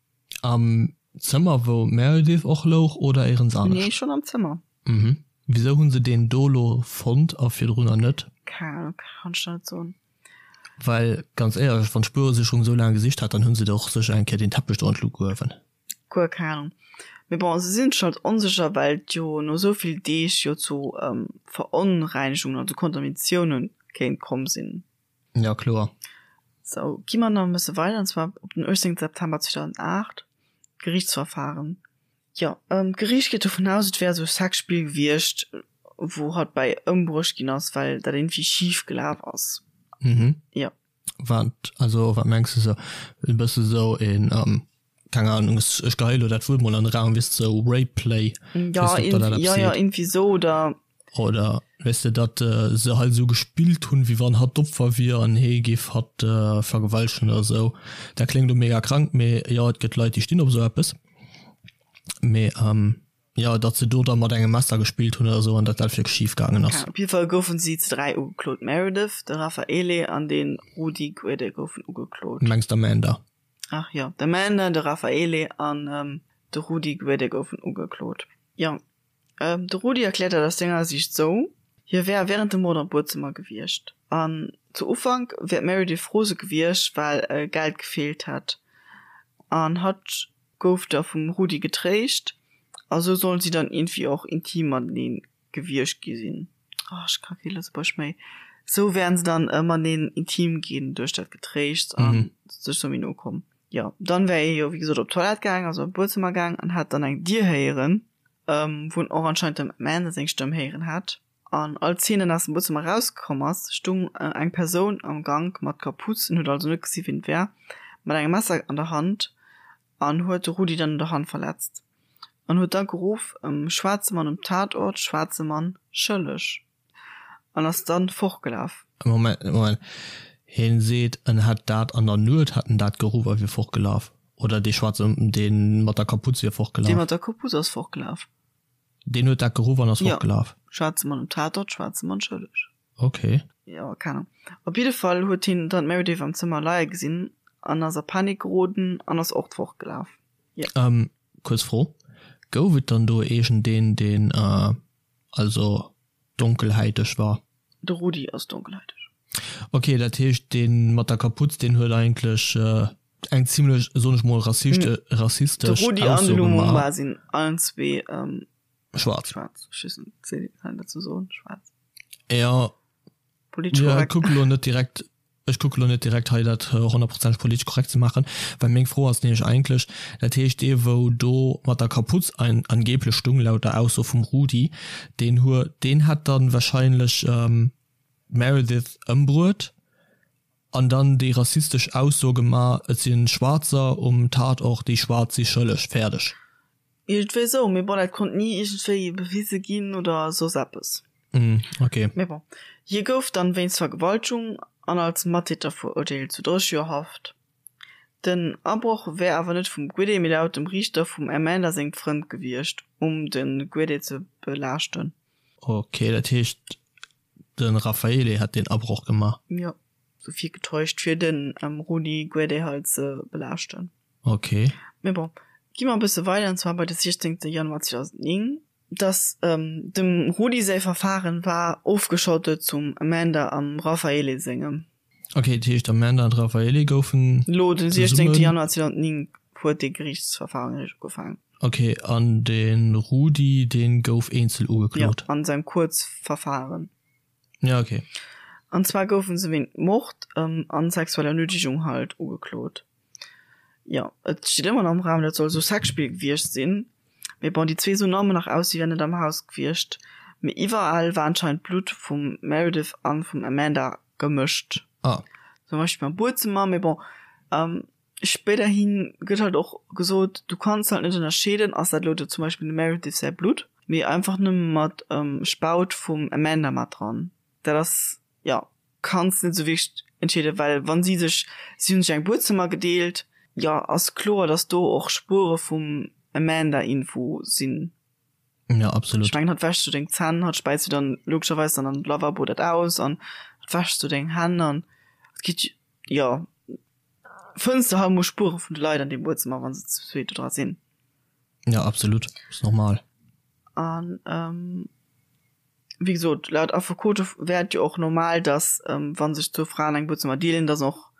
Am Zëmmer wou d'Meredith och louch oder éirens anescht? Nee, schon am Zëmmer. Mhm. Wisou hunn se deen do lo fonnt a virdrunner net? Keng Ahnung, kann ech der net soen. Well ganz éierlech, wann d'Spueresécherung esou laang gesicht hat, dann hunn se der och sécher eng Kéier deen Teppech do an d'Luucht gehuewen. Guer keng Ahnung. Mee bon, se sinn sech halt onsécher, well et jo no esou vill Deeg jo zu Veronreinigungen, also Kontaminatiounen kéint komm sinn. Ja, kloer. Sou, gi mer nach e bësse weider, an zwar op den 18 September 2008, d'Geriichtsverfahren. Jo, d'Geriicht geet dovun aus, et wär esou e Sexspill gewiescht, wou hatt bäi ëmbruecht ginn ass, well dat iergendwéi schif gelaf ass. Mhm. Jo. Wat, also wat mengs de sou? E bësse sou een, keng Ahnung, ech, ech geheie lo dat Wuert mol an de Raum, weess de, sou Rape Play, Ja, weess de, ob der dat eppes ja, ja, seet? iergendwéi sou, oder Oder weess de, datt se halt esou gespillt hunn, wéi wann hatt d'Opfer wier an hee géif hatt vergewaltegen oder esou. Dat kléngt elo mega krank, mee jo, et gëtt Leit, déi stinn op esou eppes. Mee jo, datt se do da mat engem Messer gespillt hunn oder esou an datt dat wierklech schif gaangen ass. Op jidde Fall goufen si ze 3 ugeklot, d'Meredith, de Raffaele an de Rudi Guede goufen ugeklot. Du mengs d'Amanda? Ach jo, d'Amanda, de Raffaele an de Rudi Guede goufen ugeklot, jo. De Rudi erkläert dat aus senger Siicht sou, Hie wär wärend dem Mord am Buedzëmmer gewiescht. An zu Ufank wär d'Meredith rose gewiescht, well Geld gefeelt hätt. An hatt. Gouf da vum Rudi getréischt a sou sollen si dann iergendwéi och intim matenee gewiescht gi sinn. Oh, ech ka kee Lëtzebuergesch méi. Sou wären se dann mateneen intim ginn duerch dat Getréischts a sech sou méi no komm. Jo, dann wär hie jo wéi gesot op d'Toilette gaang, also an d'Buedzëmmer gaang an hätt dann eng Dier héieren, wou en och anscheinend dem Amanda seng Stëmm héieren hätt. An als hien dann aus dem Buedzëmmer erauskomm ass, stung eng Persoun am Gank mat Kapuz, en huet also net gesi wien et war, mat engem Messer an der Hand an huet de Rudi dann un der Hand verletzt an huet da geruff, Schwaarze Mann um Tatort, schwaarze Mann schëlleg an ass dann fortgelaf. Moment, Moment, hien seet en hätt dat an der Nuet hätt en dat geruff a wier fortgelaf, oder dee schwaarze, dee mat der Kapuz wier fortgelaf? Dee mat der Kapuz ass fortgelaf. Deen huet dat geruff an ass fortgelaf? Jo, schwaarze Mann um Tatort, schwaarze Mann schëlleg. Ok. Jo, keng Ahnung. Op jidde Fall huet hien dann d'Meredith am Zëmmer leie gesinn an ass a Panik geroden an ass och fortgelaf. Jo. Kuerz Fro, Gouf et dann do iergendeen, deen also donkelhäiteg war? De Rudi ass donkelhäiteg. Ok, dat heescht dee mat der Kaputz, deen huet eigentlech eng zimlech, soen ech mol, rassistesch De Rudi an de Ausso Lumumba gemaach. sinn allen zwee Schwaarz. schwaarz. Ech weess net, seet een, kann een dat sou soen, schwaarz? Ja, Politesch ja, korrekt. kuck elo net direkt, ech kucke lo net direkt hei dat honnertprozenteg politesch korrekt ze maachen, well meng Fro ass nämlech eigentlech, dat heescht dee wou do mat der Kaputz ein angeblech stung, laut der Ausso vum Rudi, deen huet, deen hätt dann wahrscheinlech d'Meredith ëmbruet an dann déi rassistesch Ausso gemaach, et sinn Schwaarzer um Tatort, déi Schwaarz si schëlleg, fäerdeg. Iergendwéi esou, mee bon, dat konnt ni iergendwéi bewise ginn oder soss eppes. Mm, ok. Mee bon, hie gouf dann wéinst Vergewaltegung an als Mattäter verurteelt zu 30 Joer Haft. Den Abroch wär awer net vum Guede, mee laut dem Riichter vum Amanda sengem Frënd gewiescht, um de Guede ze belaaschten. Ok, dat heescht de Raffaele hätt deen Abroch gemaach? Jo, sou virgetäuscht, fir de Rudi Guede halt ze belaaschten. Ok. Mee bon, gi mer e bësse weider, an zwar bei de 16. Januar 2009. Dass dem Rudi säi Verfaren war ofgeschottet zum Amanda am Raffaele sengem. Ok, dat heescht Amanda an Raffaele goufen Lo den 16. Januar 2009 huet dee Geriichtsverfaren eréischt ugefaangen. Ok, an de Rudi dee gouf eenzel ugeklot? Jo, an sengem Kuerzverfaren. Ja, ok. An zwar goufen se wéint Mord an sexueller Nötigung halt ugeklot. Jo, et steet ëmmer nach am Raum, dat soll sou Sexspill gewiescht sinn. Mee bon, déi zwee soen ëmmer nach aus, si wären net am Haus gewiescht. Mee iwwerall war anscheinend d'Blutt vum Meredith an vum Amanda gemëscht. Ah. Zum Beispill am Buedzëmmer. Mee bon, spéiderhi gëtt halt och gesot, du kanns halt net ënnerscheeden, ass dat elo zum Beispill dem Meredith säi Blutt, mee einfach nëmme mat Spaut vum Amanda mat dran. Dat ass, jo. Kanns net sou wierklech entscheeden, well wann si sech, si hunn sech eng Buedzëmmer gedeelt, jo ass kloer dass do och Spuere vum Amanda info sinn. Ja absolut. Ech mengen hatt wäschs du deng Zänn, hatt späiz du dann logescherweis dann an de Lavabo dat aus an hatt wäschs du deng Hänn an et gitt jo fënns de halt mol Spuere vun de Leit an deem Buedzëmmer wann se zu zweet do dra sinn. Ja absolut, ass normal. An Wéi gesot, laut Affekote wär et jo och normal, datt wa sech zwou Fraen eng Buedzëmmer deelen, datt och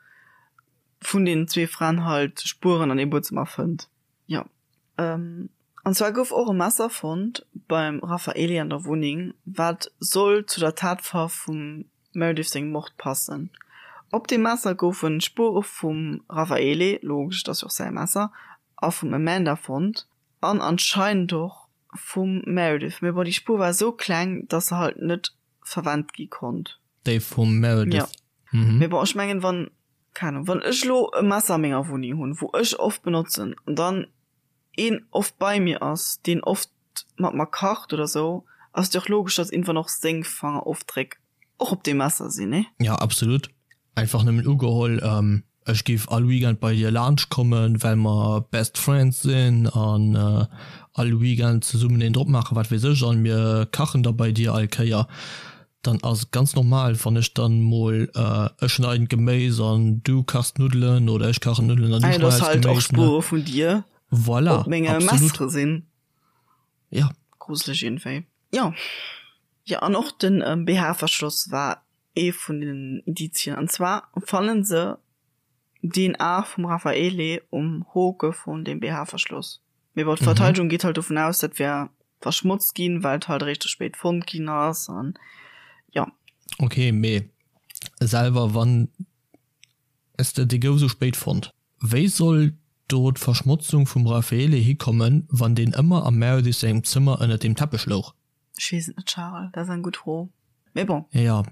vun deenen zwee Fraen halt Spueren an deem Buedzëmmer fënnt. Jo. An zwar gouf och e Messer fonnt beim Raffaele an der Wunneng, wat soll zu der Tatwaff vum Meredith sengem Mord passen. Op deem Messer goufe Spuere vum Raffaele, logesch, et ass jo och säi Messer, a vum Amanda fonnt an anscheinend och Vum Meredith, mee bon déi Spuer war esou kleng, dass se halt net verwennt gi konnt. Déi vum Meredith, Jo. Mee bon, ech mengen wann, keng Ahnung, wann ech elo e Messer a menger Wunneng hunn, wou ech oft benotzen an dann een oft bei mir ass, deen oft mat mer kacht oder sou, ass et jo och logesch, dass iergendwann och seng Fangerofdréck och op deem Messer sinn, nee? Jo, absolut. Einfach nëmmen ugeholl, ech géif all Weekend bei dir laanscht kommen, well mer best friends sinn an all Weekend zesummen een drop maachen, wat weess ech, an mir kachen da bei dir all Kéier, dann ass et ganz normal, wann ech dann mol, ech schneiden d'Geméis an du kachs d'Nuddelen oder ech kachen d'Nuddelen an du Ah jo, dass schneis halt och d'Geméis, ne? Spuere vun dir Voilà, op menge absolut. Messere sinn. Ja. Gruseleg iergendwéi. Jo. Jo, an och den BH-Verschloss war ee vun den Indizien. An zwar fannen se. DNA vum Raffaele um Hoke vun dem BH-Verschloss. Mee bon, d'Verteidegung geet halt dovun aus, dat wär verschmotzt ginn, well et halt eréischt ze spéit fonnt ginn ass an jo. Ok, mee selwer wann s de, dee gouf esou spéit fonnt. Wéi soll do d'Verschmotzung vum Raffaele hikommen, wann deen ëmmer am Meredith sengem Zëmmer ënnert dem Teppech louch? Ech weess et net, Charel, dat ass eng gutt Fro. Mee bon. Jo,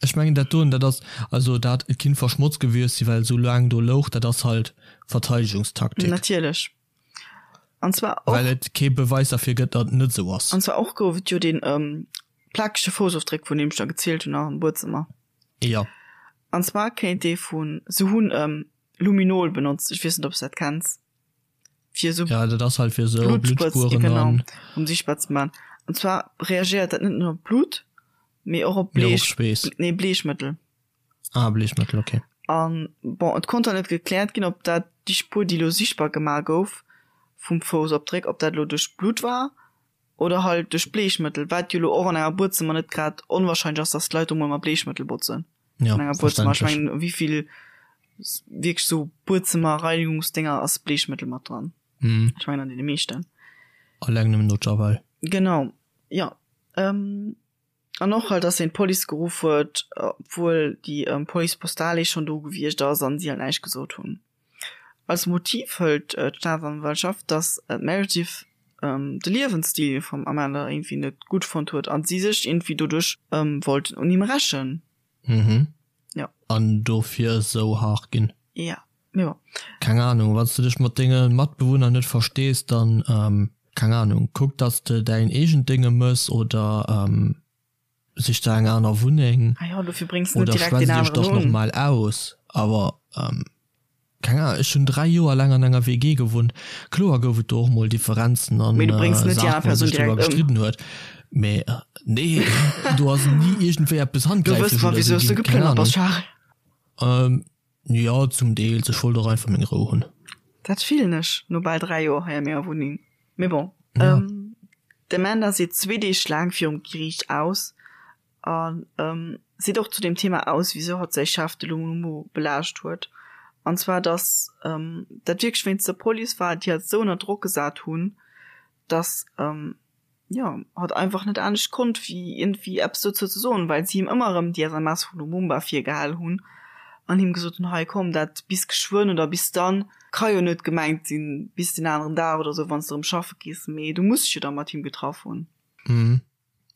ech mengen dat doen, dat ass, also dat et kinnt verschmotzt gewiescht sinn, well et esou laang do louch, dat ass halt Verteidigungstaktik. Natierlech. An zwar och. Well et kee Beweis derfir gëtt, datt et net esou ass. An zwar och gouf et jo dee plakege Foussofdréck, vun deem ech der gezielt hunn, am Buedzëmmer. Jo. An zwar kéint dee vun, se hunn Luminol benotzt, ech weess net, ob s dat kenns. fir esou Ja, dat ass halt fir esou Bluttspueren genau, an um sichtbar ze man. An zwar reagéiert dat net nëmmen op Blut, mee och op Mee och op Bleech, Schweess. nee Bleechmëttel. Ah, Bleechmëttel, okay. An bon, et konnt dann net gekläert ginn, ob dat déi Spuer, déi elo sichtbar gemaach gouf vum Foussopdréck, ob dat elo duerch Blut war oder halt duerch Bleechmëttel, wat jo elo och an enger Buedzëmmer net grad onwahrscheinlech ass, dass d'Leit do mol mat Bleechmëttel botzen. Ja, an enger Buedzëmmer. Ech mengen, wéivill wierklech sou Buedzëmmer-Reinigungsdinger ass Bleechmëttel mat dran? Mhm. Ech mengen an deene meeschten. Alleng nëmmen no Javel. Genau, jo. Ähm, an och halt, dass hien d'Police geruff huet, obwuel déi Police postale schonn do gewiescht ass an si halt näischt gesot hunn. Als Motiv hëlt d'Staatsanwaltschaft, datt d'Meredith de Liewensstil vum Amanda iergendwéi net gutt fonnt huet a si sech iergendwéi doduerch wollten un him rächen. Mhm. Jo. An dofir esou haart ginn. Ja, mee bon. Keng Ahnung, wann s de dech mat denge Matbewunner net verstees, dann, keng Ahnung, kuck, datt s de däin eegent Dénge mëss oder Sich der eng aner Wunneng ah ja, dofir bréngs du net direkt deen aneren un. Oder normal aus. Awer keng Ahnung, ech hunn 3 Joer laang an enger WG gewunnt. Kloer gouf et do och mol Differenzen an Mee du bréngs net déi aner Persoun direkt ëm. gestridden huet. Mee nee, do ass ni iergendwéi eppes handgräiflech oder esou ginn. Keng Ahnung. Jo, zum Deels. Ech wollt och einfach meng Rou hunn. Dat fillen ech no bal 3 Joer hei a menger Wunneng. Mee bon. D'Amanda seet zwee Deeg laang virum Geriicht aus a seet och zu deem Thema aus, wisou hatt säi Chef, de Lumumbo, belaascht huet. An zwar, datt dat wierklech wéinst der Police war, déi hatt esou ënner Drock gesat hunn, datt jo, hatt einfach net anescht konnt wéi iergendwéi eppes dozou ze soen, well si him ëmmer erëm déi SMS vu Lumumba virgehal hunn an him gesot hunn, hei komm, dat bis geschwënn oder bis dann ka jo net gemengt sinn bis den aneren Dag oder sou, wann s de erëm schaffe gees, mee du muss dech jo da mat him getraff hunn. Mhm.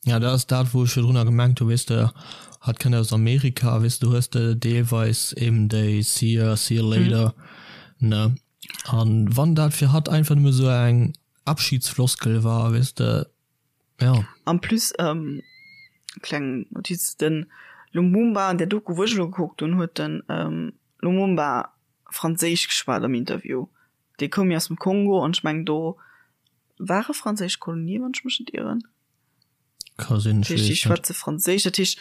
Ja, dat ass dat, wou ech virdrunner gemengt hu, weess de, hatt kënnt aus Amerika, weess de, do hues de deelweis eben déi see ya, see ya later, ne? An wann dat fir hatt einfach nëmme sou eng Abschiedsfloskel war, weess de, ja. En plus, kleng Notiz, den Lumumba an där Doku wou ech elo gekuckt hunn, huet den Lumumba franséisch geschwat am Interview. Dee koum jo aus dem Kongo an ech mengen do ware franséisch Kolonie, wann ech mech net ieren. Ka sinn, ech weess et net. Déi schwätze Franséisch, dat heescht,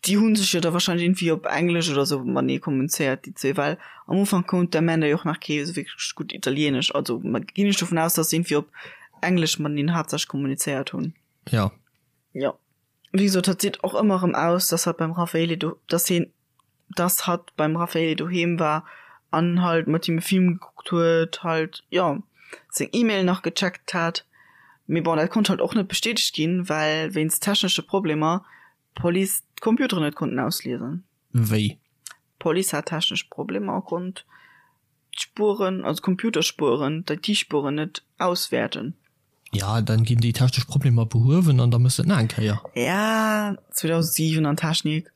déi hu sech jo da wahrscheinlech iergendwéi op Englesch oder sou matenee kommunizéiert, déi zwee, well am Ufank konnt d'Amanda jo och nach kee sou wierklech gutt Italieenesch. Also ginn ech dovun aus, datt se iergendwéi op Englesch mateneen haaptsächlech kommunizéiert hunn. Jo. Jo. Wéi gesot, hatt seet och ëmmer erëm aus, datt hatt beim Raffaele do, datt hien dass hatt beim Raffaele doheem war an halt mat him e Film gekuckt huet, halt jo seng E-Mail nach gecheckt hat. Mee bon, dat konnt halt och net bestätegt ginn, well wéinst technesche Problemer d'Police d'Computeren net konnten ausliesen. Wéi? D'Police hat technesch Problemer a konnt d'Spueren, also d'Computerspueren, d'IT-Spueren net auswäerten. Ja, dann ginn déi technesch Problemer behuewen an da mëss de et nach eng Kéier. Ja, 2007 an Technik.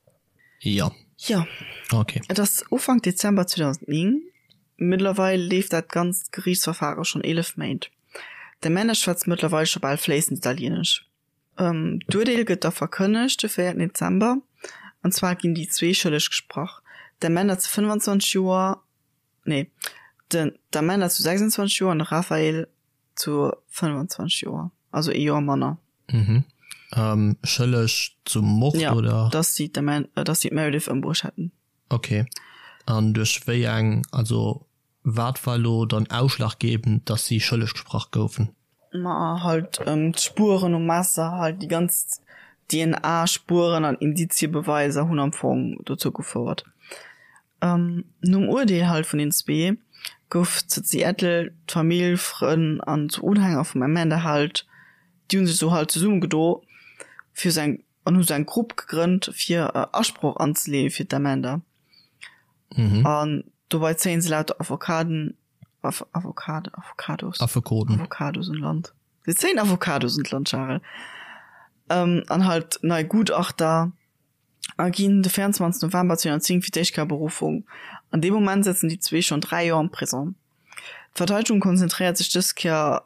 Jo. Jo. Ok. Et ass Ufank Dezember 2009. Mëttlerweil leeft dat ganzt Geriichtsverfare schonn 11 Méint. D'Amanda schwätzt mëttlerweil scho bal fléissend Italieenesch. D'Urteel gëtt da verkënnegt de 4 Dezember. An zwar ginn déi zwee schëlleg gesprach, d'Amanda zu 25 Joer, nee, den d'Amanda zu 26 Joer an de Raphael zu 25 Joer, also ee Joer manner. Mhm. Ähm, schëlleg zum Mord, ja, oder? Dass si d'Amanda, dass si d'Meredith ëmbruecht hätten. Okay. An duerch wéi eng, also wat war elo dann ausschlaggebend, dass si schëlleg gesprach goufen? Ma halt d'Spueren um Messer, halt déi ganz DNA-Spueren an Indiziebeweise hunn am Fong dozou gefouert. Nom Urdeel halt vun den zwee gouf zu Seattle d'Famill, Frënn an Unhänger vum Amanda halt, déi hu sech sou halt zesummegedo fir sou eng an hu sou eng Grupp gegrënnt fir Asproch anzeleeë fir d'Amanda. An dobei zéien se lauter Avocaden, Avocade, Avocados, Affekoten, Avocados un Land. Se zéien Avocados un d'Land, Charel. An halt nei Gutachter. A ginn de 24 November 2010 fir d'éischt Kéier Beruffung. An deem Moment sëtzen déi zwee schonn 3 Joer am Prisong. D'Verteidegung konzentréiert sech dës Kéier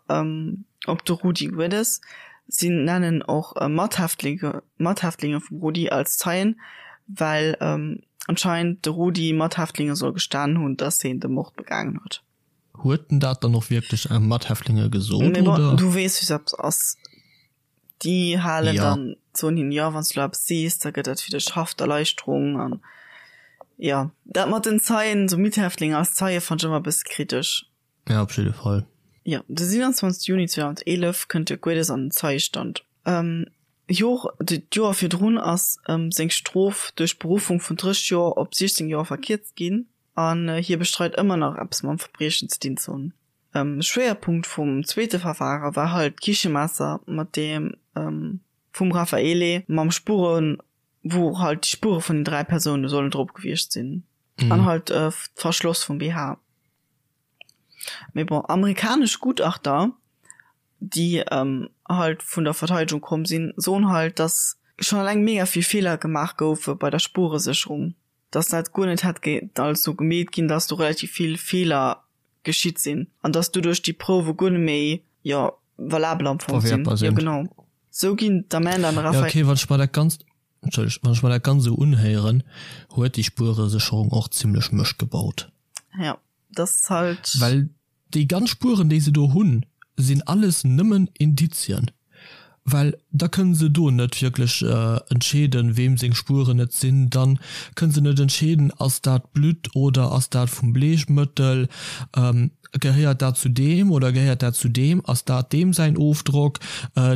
op de Rudi Guedes. Si nennen och Mathäftlinge Mathäftlinge vum Rudi als Zeien, well anscheinend de Rudi Mathäftlinge soll gestanen hunn, datt hien de Mord begaangen huet. Huet en dat dann och wierklech Mathäftlinge gesot, oder? Mee bon, du weess, wéi se ass. Déi halen ja. dann soen hin ja wann du eppes sees, da gëtt dat fir dech Hafterleichterung an ja dat mat den Zeien so Mithäftlinge als Zeie fand ech ëmmer e bësse kritesch. Ja op jidde Fall. Ja de 27 Juni 2011 kënnt de Guedes an den Zeiestand. Ähm, Jor d'Joer virdrun ass ähm, seng Strof duerch Beruffung vun 30 Joer op 16 Joer verkierzt ginn an hie bestreit ëmmer nach eppes mam Verbriechen ze dinn ze hunn. Schwéierpunkt vum zweete Verfare war halt d'Kichemesser mat deem vum Raffaele mam Spuren, wou halt déi Spuere vun den 3 Persoune sollen drop gewiescht sinn an halt d'Verschloss vum BH. Mee bon, amerikanesch Gutachter, déi halt vun der Verteidegung komm sinn, soen halt, datt schonn eleng mega vill Feeler gemaach goufe bei der Spuresécherung, datt dat guer net hätt alles esou gemeet ginn, datt do relativ vill Feeler geschitt sinn an dass doduerch déi Prouwe guer net méi, jo, valabel am Fong sinn. Verwertbar sinn. Jo, genau. Sou ginn d'Amanda an de Ja, Raphael. okay, wann ech mer dat Ganzt, Entschëllegt, wann ech mer dat Ganzt esou unhéieren, huet déi Spueresécherung och zimlech Mëscht gebaut. Ja, dat ass halt. Well déi ganz Spueren, déi se do hunn, sinn alles nëmmen Indizien. Well da kënne se do net wierklech entscheeden, weem seng Spueren et sinn. Da kënne se net entscheeden, ass dat Blutt oder ass dat vum Bleechmëttel, gehéiert dat zu deem oder gehéiert dat zu deem, ass dat deem säin Ofdrock,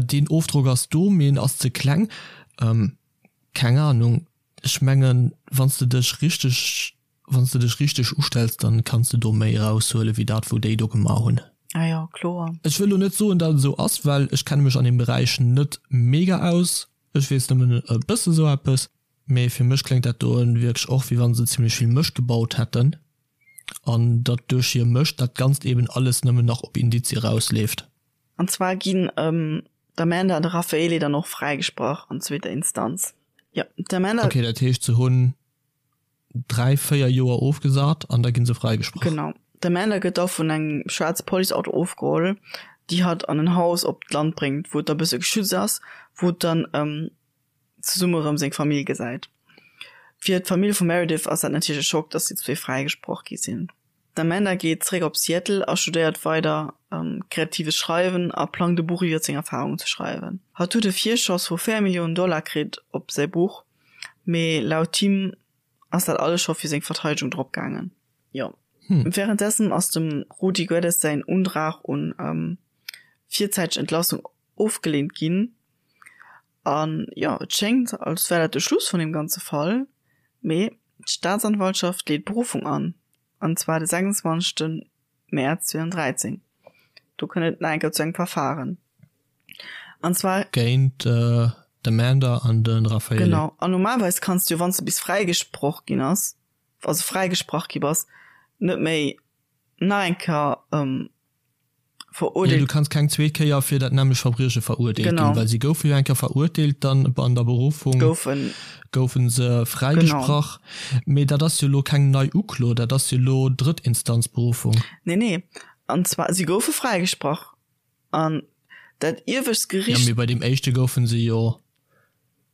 deen Ofdrock ass do, mee en ass ze kleng. Keng Anung. Ech mengen, wann s de dech richteg Wann s de dech richteg ustells, dann kanns de do méi eraushuelen, wéi dat wou déi do gemaach hunn. Ah jo, kloer. Ech wëll lo net soen, dat et esou ass, well ech kenne mech an deem Beräich net mega aus. Ech weess nëmmen e bësse sou eppes. Mee fir mech kléngt dat doen wierklech och, wéi wann se zimlech vill Mëscht gebaut hätten an datt duerch hir Mëscht dat Ganzt eben alles nëmmen nach op Indizie erausleeft. An zwar ginn d'Amanda an de Raffaele dann och fräigesprach an zweeter Instanz. Jo, d'Amanda. Ok, dat heescht se hunn 3, 4 Joer ofgesat an da ginn se fräigesprach. Genau. D'Amanda gëtt da vun engem schwaarze Policeauto ofgeholl, déi hatt an en Haus op d'Land bréngt, wou et da bësse geschützt ass, wou et dann zesumme rëm seng Famill gesäit. Fir d'Famill vum Meredith ass dat natierlech e Schock, dass déi zwee fräigesproch gi sinn. D'Amanda geet zeréck op Seattle a studéiert weider kreatives Schreiwen a plangt e Buch iwwer seng Erfarungen ze schreiwen. Hatt huet e Virschoss vu 4 Milliounen Dollar kritt op säi Buch, mee laut him ass dat alles scho fir seng Verteidegung drop gaangen. Jo. Wärenddessen ass dem Rudi Guedes säin Undrag un virzäiteg Entlassung ofgeleent ginn. An jo, et schéngt, als wär dat de Schluss vun deem ganze Fall, mee d'Staatsanwaltschaft leet Beruffung an, an zwar de 26 Mäerz 2013. Do kënnt et nach eng Kéier zu engem Verfaren, an zwar. Géint d'Amanda an de Raffaele. Genau, an normalerweis kanns du jo, wann s de bis fräigesproch ginn ass, also fräigesprach gi bass, net méi nach eng Kéier verurteelt. Jo, du kanns keng zweet Kéier fir dat nämmlecht Verbrieche verurteelt ginn, well si goufe jo eng Kéier verurteelt, dann an der Beruffung goufe se fräigesprach. Mee dat ass jo elo keng nei Uklo, dat ass jo elo Drëttinstanzberuffung. Nee, nee, an zwar si goufe fräigesprach an dat iewescht Gericht. Jo, mee bei deem éischte goufe se jo.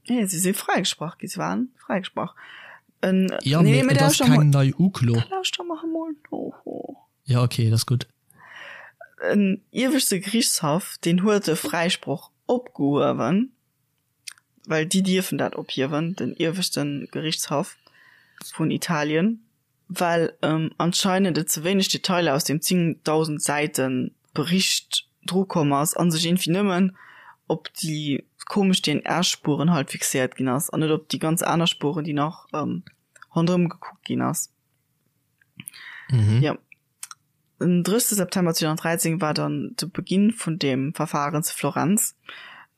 Nee, si si fräigesprach gi, si waren fräigesprach. Jo, mee et ass keng nei Uklo. Lauschter mer emol no. Jo, ok, dat ass gutt. En ieweschte Geriichtshaff, deen huet de Fräisproch opgehuewen, well déi dierfen dat ophiewen, den ieweschte Geriichtshaff vun Italien, well anscheinend et ze wéineg Detailer aus deem 10.000 Säite Bericht drukomm ass a sech iergendwéi nëmmen op déi komesch DNA-Spueren halt fixéiert ginn ass an net op déi ganz aner Spueren, déi nach ronderëm gekuckt ginn ass. Mhm. Ja. Den 30. September 2013 war dann de Beginn vun dem Verfahren zu Florenz.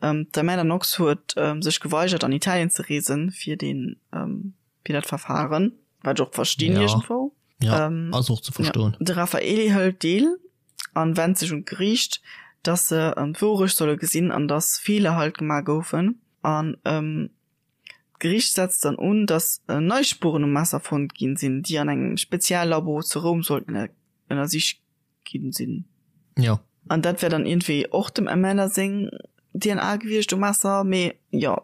Ähm, d'Amanda Knox huet ähm, sech geweigert an Italien ze reesen fir den ähm, fir dat Verfahren, wat ech och verstinn ja. iergendwou. Ja, ähm, ass och ze verstoen. Ja. De Raffaele hëlt deel an wennt sech un d'Geriicht, dass se ähm, d'Wourecht solle gesinn an dass Feeler halt gemaach goufen. An ähm, D'Geriicht setzt dann un, datt nei Spueren um Messer fonnt ginn sinn, déi an engem Speziallabo zu Roum sollten ënnersicht ginn sinn. Jo. An dat wär dann iergendwéi och dem Amanda seng DNA gewiescht um Messer, mee jo,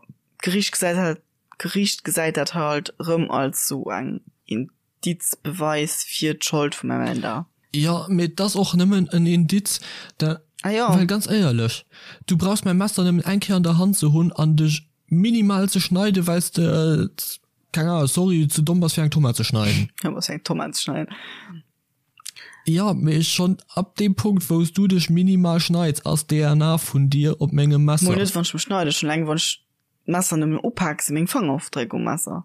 d'Geriicht gesäit halt, d'Geriicht gesäit dat halt erëm als sou eng Indiz, Beweis fir d'Schold vum Amanda. Jo, mee et ass och nëmmen en Indiz, da, Ah jo. well ganz éierlech, du brauchs mäi Messer nëmmen eng Kéier an der Hand ze hunn an dech minimal ze schneiden, well s de, keng Ahnung, sorry, ze domm bass fir eng Tomat ze schneiden. Domm bass fir eng Tomat ze schneiden. Jo, mee schonn ab deem Punkt, wou s du dech minimal schneids, ass d'DNA vun dir op mengem Messer. Mol net wann ech mech schneiden, schonn eleng wann ech d'Messer nëmmen upak, si meng Fangerofdréck um Messer.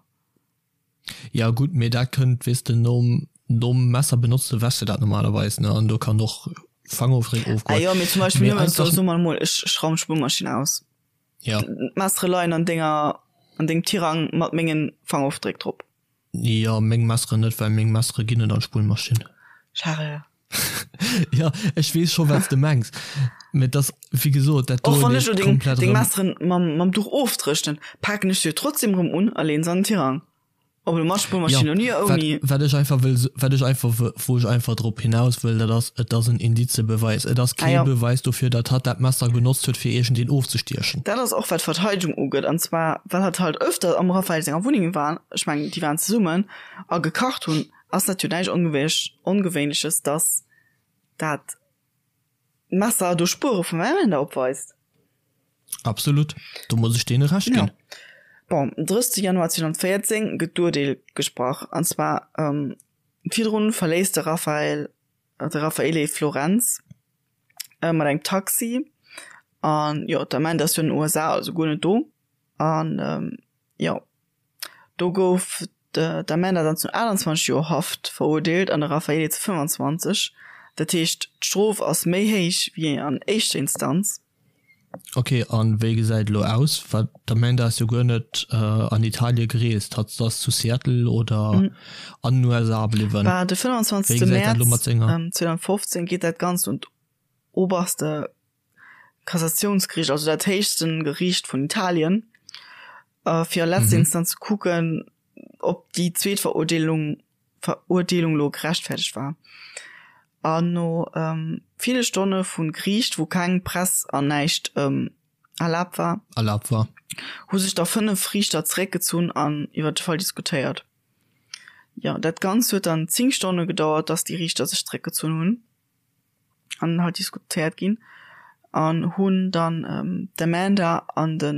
Ja gutt, mee dat kënnt, weess de, nom nom Messer benotze wäschs de dat normalerweis, ne, an do kann och Fangofdréck Ah ofgoen. jo, mee zum Beispill Mee nëmmen, einfach. soe mer emol, ech ech raumen d'Spullmaschinn aus. Ja. D'Messere leien an denger an dengem Tirang mat mengen Fangofdréck drop. Jo, meng Messeren net, well meng Messere ginn net an d'Spullmaschinn. Charel. Ja, ech weess scho wat s de mengs, mee et ass wéi gesot dat Och do wann ech leeft lo deng komplett deng erëm. Messeren mam mam Duch ofdréchnen, paken ech se jo trotzdem erëm un a leen se an den Tirang. Ob elo mat Ja, Spullmaschinn oder wat ouni. wat ech einfach wëll wat ech einfach wë wou ech einfach drop hinaus wëll, dat ass, et ass en Indizebeweis. Et ass Ah kee jo. Beweis dofir, datt hatt dat Messer genotzt huet fir iergendeen ofzestiechen. Dat ass och wat d'Verteidegung ugeet, an zwar well hatt halt öfter am Raphael senger Wunneng war, ech mengen déi waren zesummen, a gekacht hunn, ass dat jo näischt Ongewéinleches, dass dat Messer do Spuere vum Amanda opweist. Absolut, do muss ech deene Recht ginn. Jo. Bon, den 30 Januar 2014 gëtt d'Urteel gesprach, an zwar virdrun verléisst de Raphael, de Raffaele Florenz mat engem Taxi, an jo, d'Amanda ass jo an den USA, also guer net do, an jo. Do gouf d'Amanda dann zu 28 Joer Haft verurteelt an de Raffaele zu 25. Dat heescht, d'Strof ass méi héich wéi an éischter Instanz. Ok, an wéi gesäit elo aus? Well d'Amanda ass jo guer net an Italie gereest, hatt ass zu Seattle oder an den USA bliwwen. Bah, de 25 Mäerz 2015 geet dat Ganzt un d'oberste Kassatiounsgeriicht, also dat héichsten Geriicht vun Italien, fir a letzter Instanz ze kucken, ob déi zweet Verurteelung Verurteelung lo gerechtfertegt war. An no ville Stonne vu Geriicht, wou keng Press an näischt erlaabt war, erlaabt war, hu sech da 5 Riichter zeréckgezunn an iwwer de Fall diskutéiert. Jo, dat Ganzt huet dann 10 Stonne gedauert, dass déi Riichter sech zeréckgezunn hunn. an halt diskutéiert ginn an hunn dann d'Amanda an de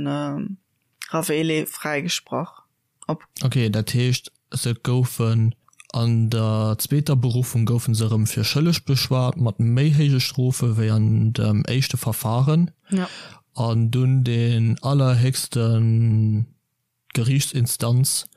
Raffaele fräigesprach op. Ok, dat heescht se goufen an der zweeter Beruffung goufen se erëm fir schëlleg beschwat mat méi héije Strofe wéi an dem éischte Verfahren. Ja. An dunn deen allerhéchsten D'Geriichtsinstanz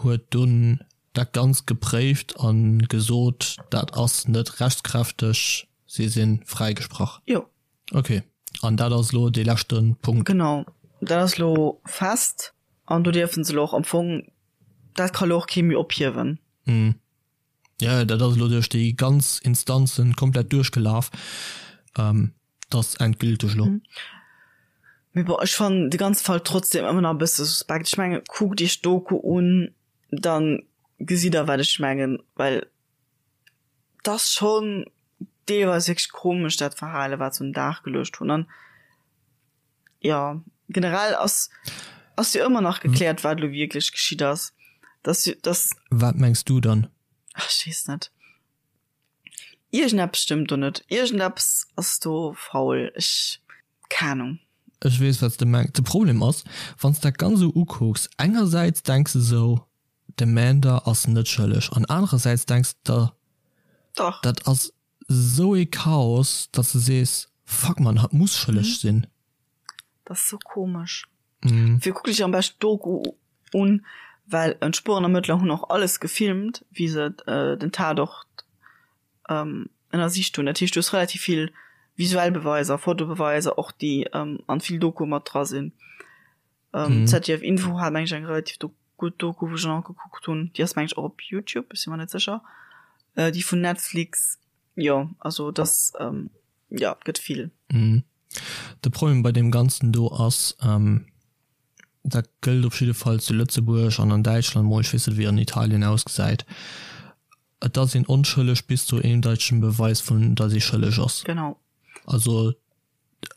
huet dunn dat Ganzt gepréift a gesot, dat ass net rechtskräfteg, si si fräigesprach. Jo. Ok, an dat ass elo dee leschte Punkt. Genau, dat ass elo fest an do dierfe se elo och am Fong, dat ka elo och kee méi ophiewen. Jo, dat ass elo duerch déi ganz Instanzen komplett duerchgelaf. Dat ass endgülteg elo. Mee bon, ech fannen de ganze Fall trotzdem ëmmer nach e bësse suspekt. Ech mengen, kuckt iech d'Doku un, da gesitt der wat ech mengen, well et ass schonn deelweis wierklech komesch dat Verhale wat se un den Dag geluecht hunn. An jo, generell ass ass jo ëmmer nach gekläert wat elo wierklech geschitt ass. Dass dass. Wat mengs du dann? Ach, ech weess net. Iergendeppes stëmmt do net. Iergendeppes ass do faul. Ech, keng Ahnung. Ech weess wat s de mengs. De Problem ass, wann s dat ganz esou ukucks, engersäits denks de esou, d'Amanda ass net schëlleg an anerersäits denks de der, Dach. dat ass esou ee Chaos, datt s de sees, fuck man, hatt muss schëlleg sinn. Dat ass sou komesch. Fir kuck dech am beschten d'Doku un. Well d'Spuerenermëttler hunn och alles gefilmt, wéi se den Tatort ënnersicht hunn. Dat heescht, du hues relativ vill visuell Beweiser, Fotobeweiser och, déi an vill Dokue mat dra sinn. ZDF Info hat meng ech eng relativ gutt Doku, wou ech nach gekuckt hunn. Déi ass meng ech och op Youtube, ech si mer net sécher. Déi vun Netflix, jo, also dass, jo, et gëtt vill. De Problem bei deem Ganzen do ass, dat gëllt op jidde Fall zu Lëtzebuerg an an Däitschland mol, ech weess net wéi an Italien ausgesäit, et ass een onschëlleg bis zu eendeitegen Beweis vun datt ee schëlleg ass. Genau. Also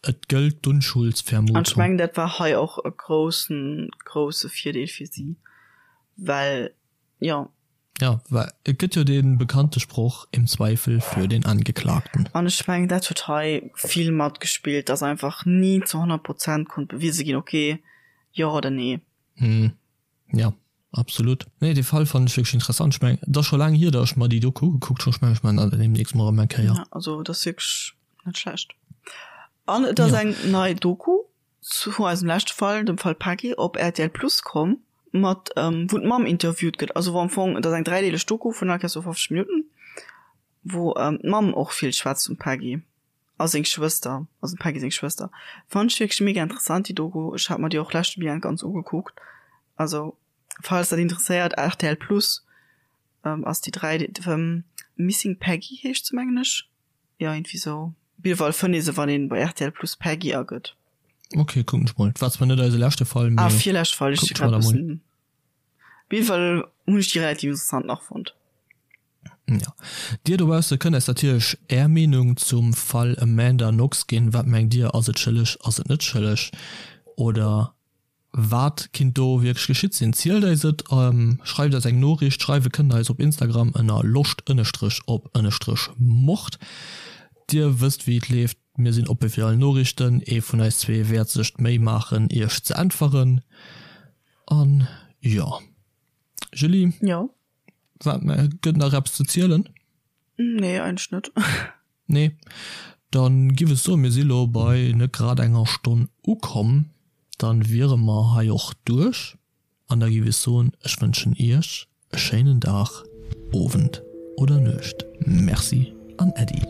et gëllt d'Unschuldsvermutung. An ech mengen dat war hei och e groussen, grousse Virdeel fir si, well jo. Jo, well et gëtt jo dee bekannte Sproch, Im Zweifel für den Angeklagten. An ech mengen, dat huet hei vill matgespillt, dass einfach ni zu 100 Prozent konnt bewise ginn, okay, jo oder nee. Jo, absolut. Nee, dee Fall fannen ech wierklech interessant. Ech mengen, et ass scho laang hier, datt ech mer déi Doku ugekuckt hunn. Ech mengen, ech maachen dat deemnächst mol erëm eng Kéier. Jo, also et ass wierklech net schlecht. An et ass eng nei Doku Zu eisem leschte Fall, dem Fall Peggy, op rtl Plus komm, mat wou d'Mamm interviewt gëtt, also wou am Fong, et ass eng dräideeleg Doku vun all Kéiers sou 50 Minutten, wou d'Mamm och vill schwätzt vum Peggy a seng Schwëster, also dem Peggy seng Schwëster. Fannt ech wierklech mega interessant déi Doku, ech hat mer déi och leschte Weekend ganz ugekuckt, also falls dat interesséiert, rtl Plus ass déi 3, Missing Peggy heescht se mengen ech. Jo iergendwéi sou. Op jidde Fall fënnt ee se wann een bei rtl Plus Peggy agëtt. Ok, kucken ech mol. War zwar net eise leschte Fall, mee. Ah, virleschte Fall, ech si grad bëssen. Op jidde Fall hunn ech déi relativ interessant nach fonnt. Jo. Dir dobausse kënnt eis natierlech är Meenung zum Fall Amanda Knox ginn. Wat mengt dir, ass et schëlleg, ass et net schëlleg oder Wat kinnt do wierklech geschitt sinn? Zielt eis et, schreift eis eng Noriicht. Schreiwe kënnt der eis op Instagram ënner loscht ënnestrech op ënnestrech mord. Dir wësst wéi et leeft, mir sinn oppe fir all Noriichten. Ee vun eis zwee wäert sech d'Méi maachen iech ze äntweren. An jo, Julie? Jo? Wat, gëtt nach eppes ze zielen? Nee, eigentlech net. Nee, dann giff ech soen, mir si lo bei net grad enger Stonn ukomm, dann wiere mer hei och duerch an da giff ech soen, ech wënschen iech e schéinen Dag, Owend oder Nuecht. Merci an Äddi.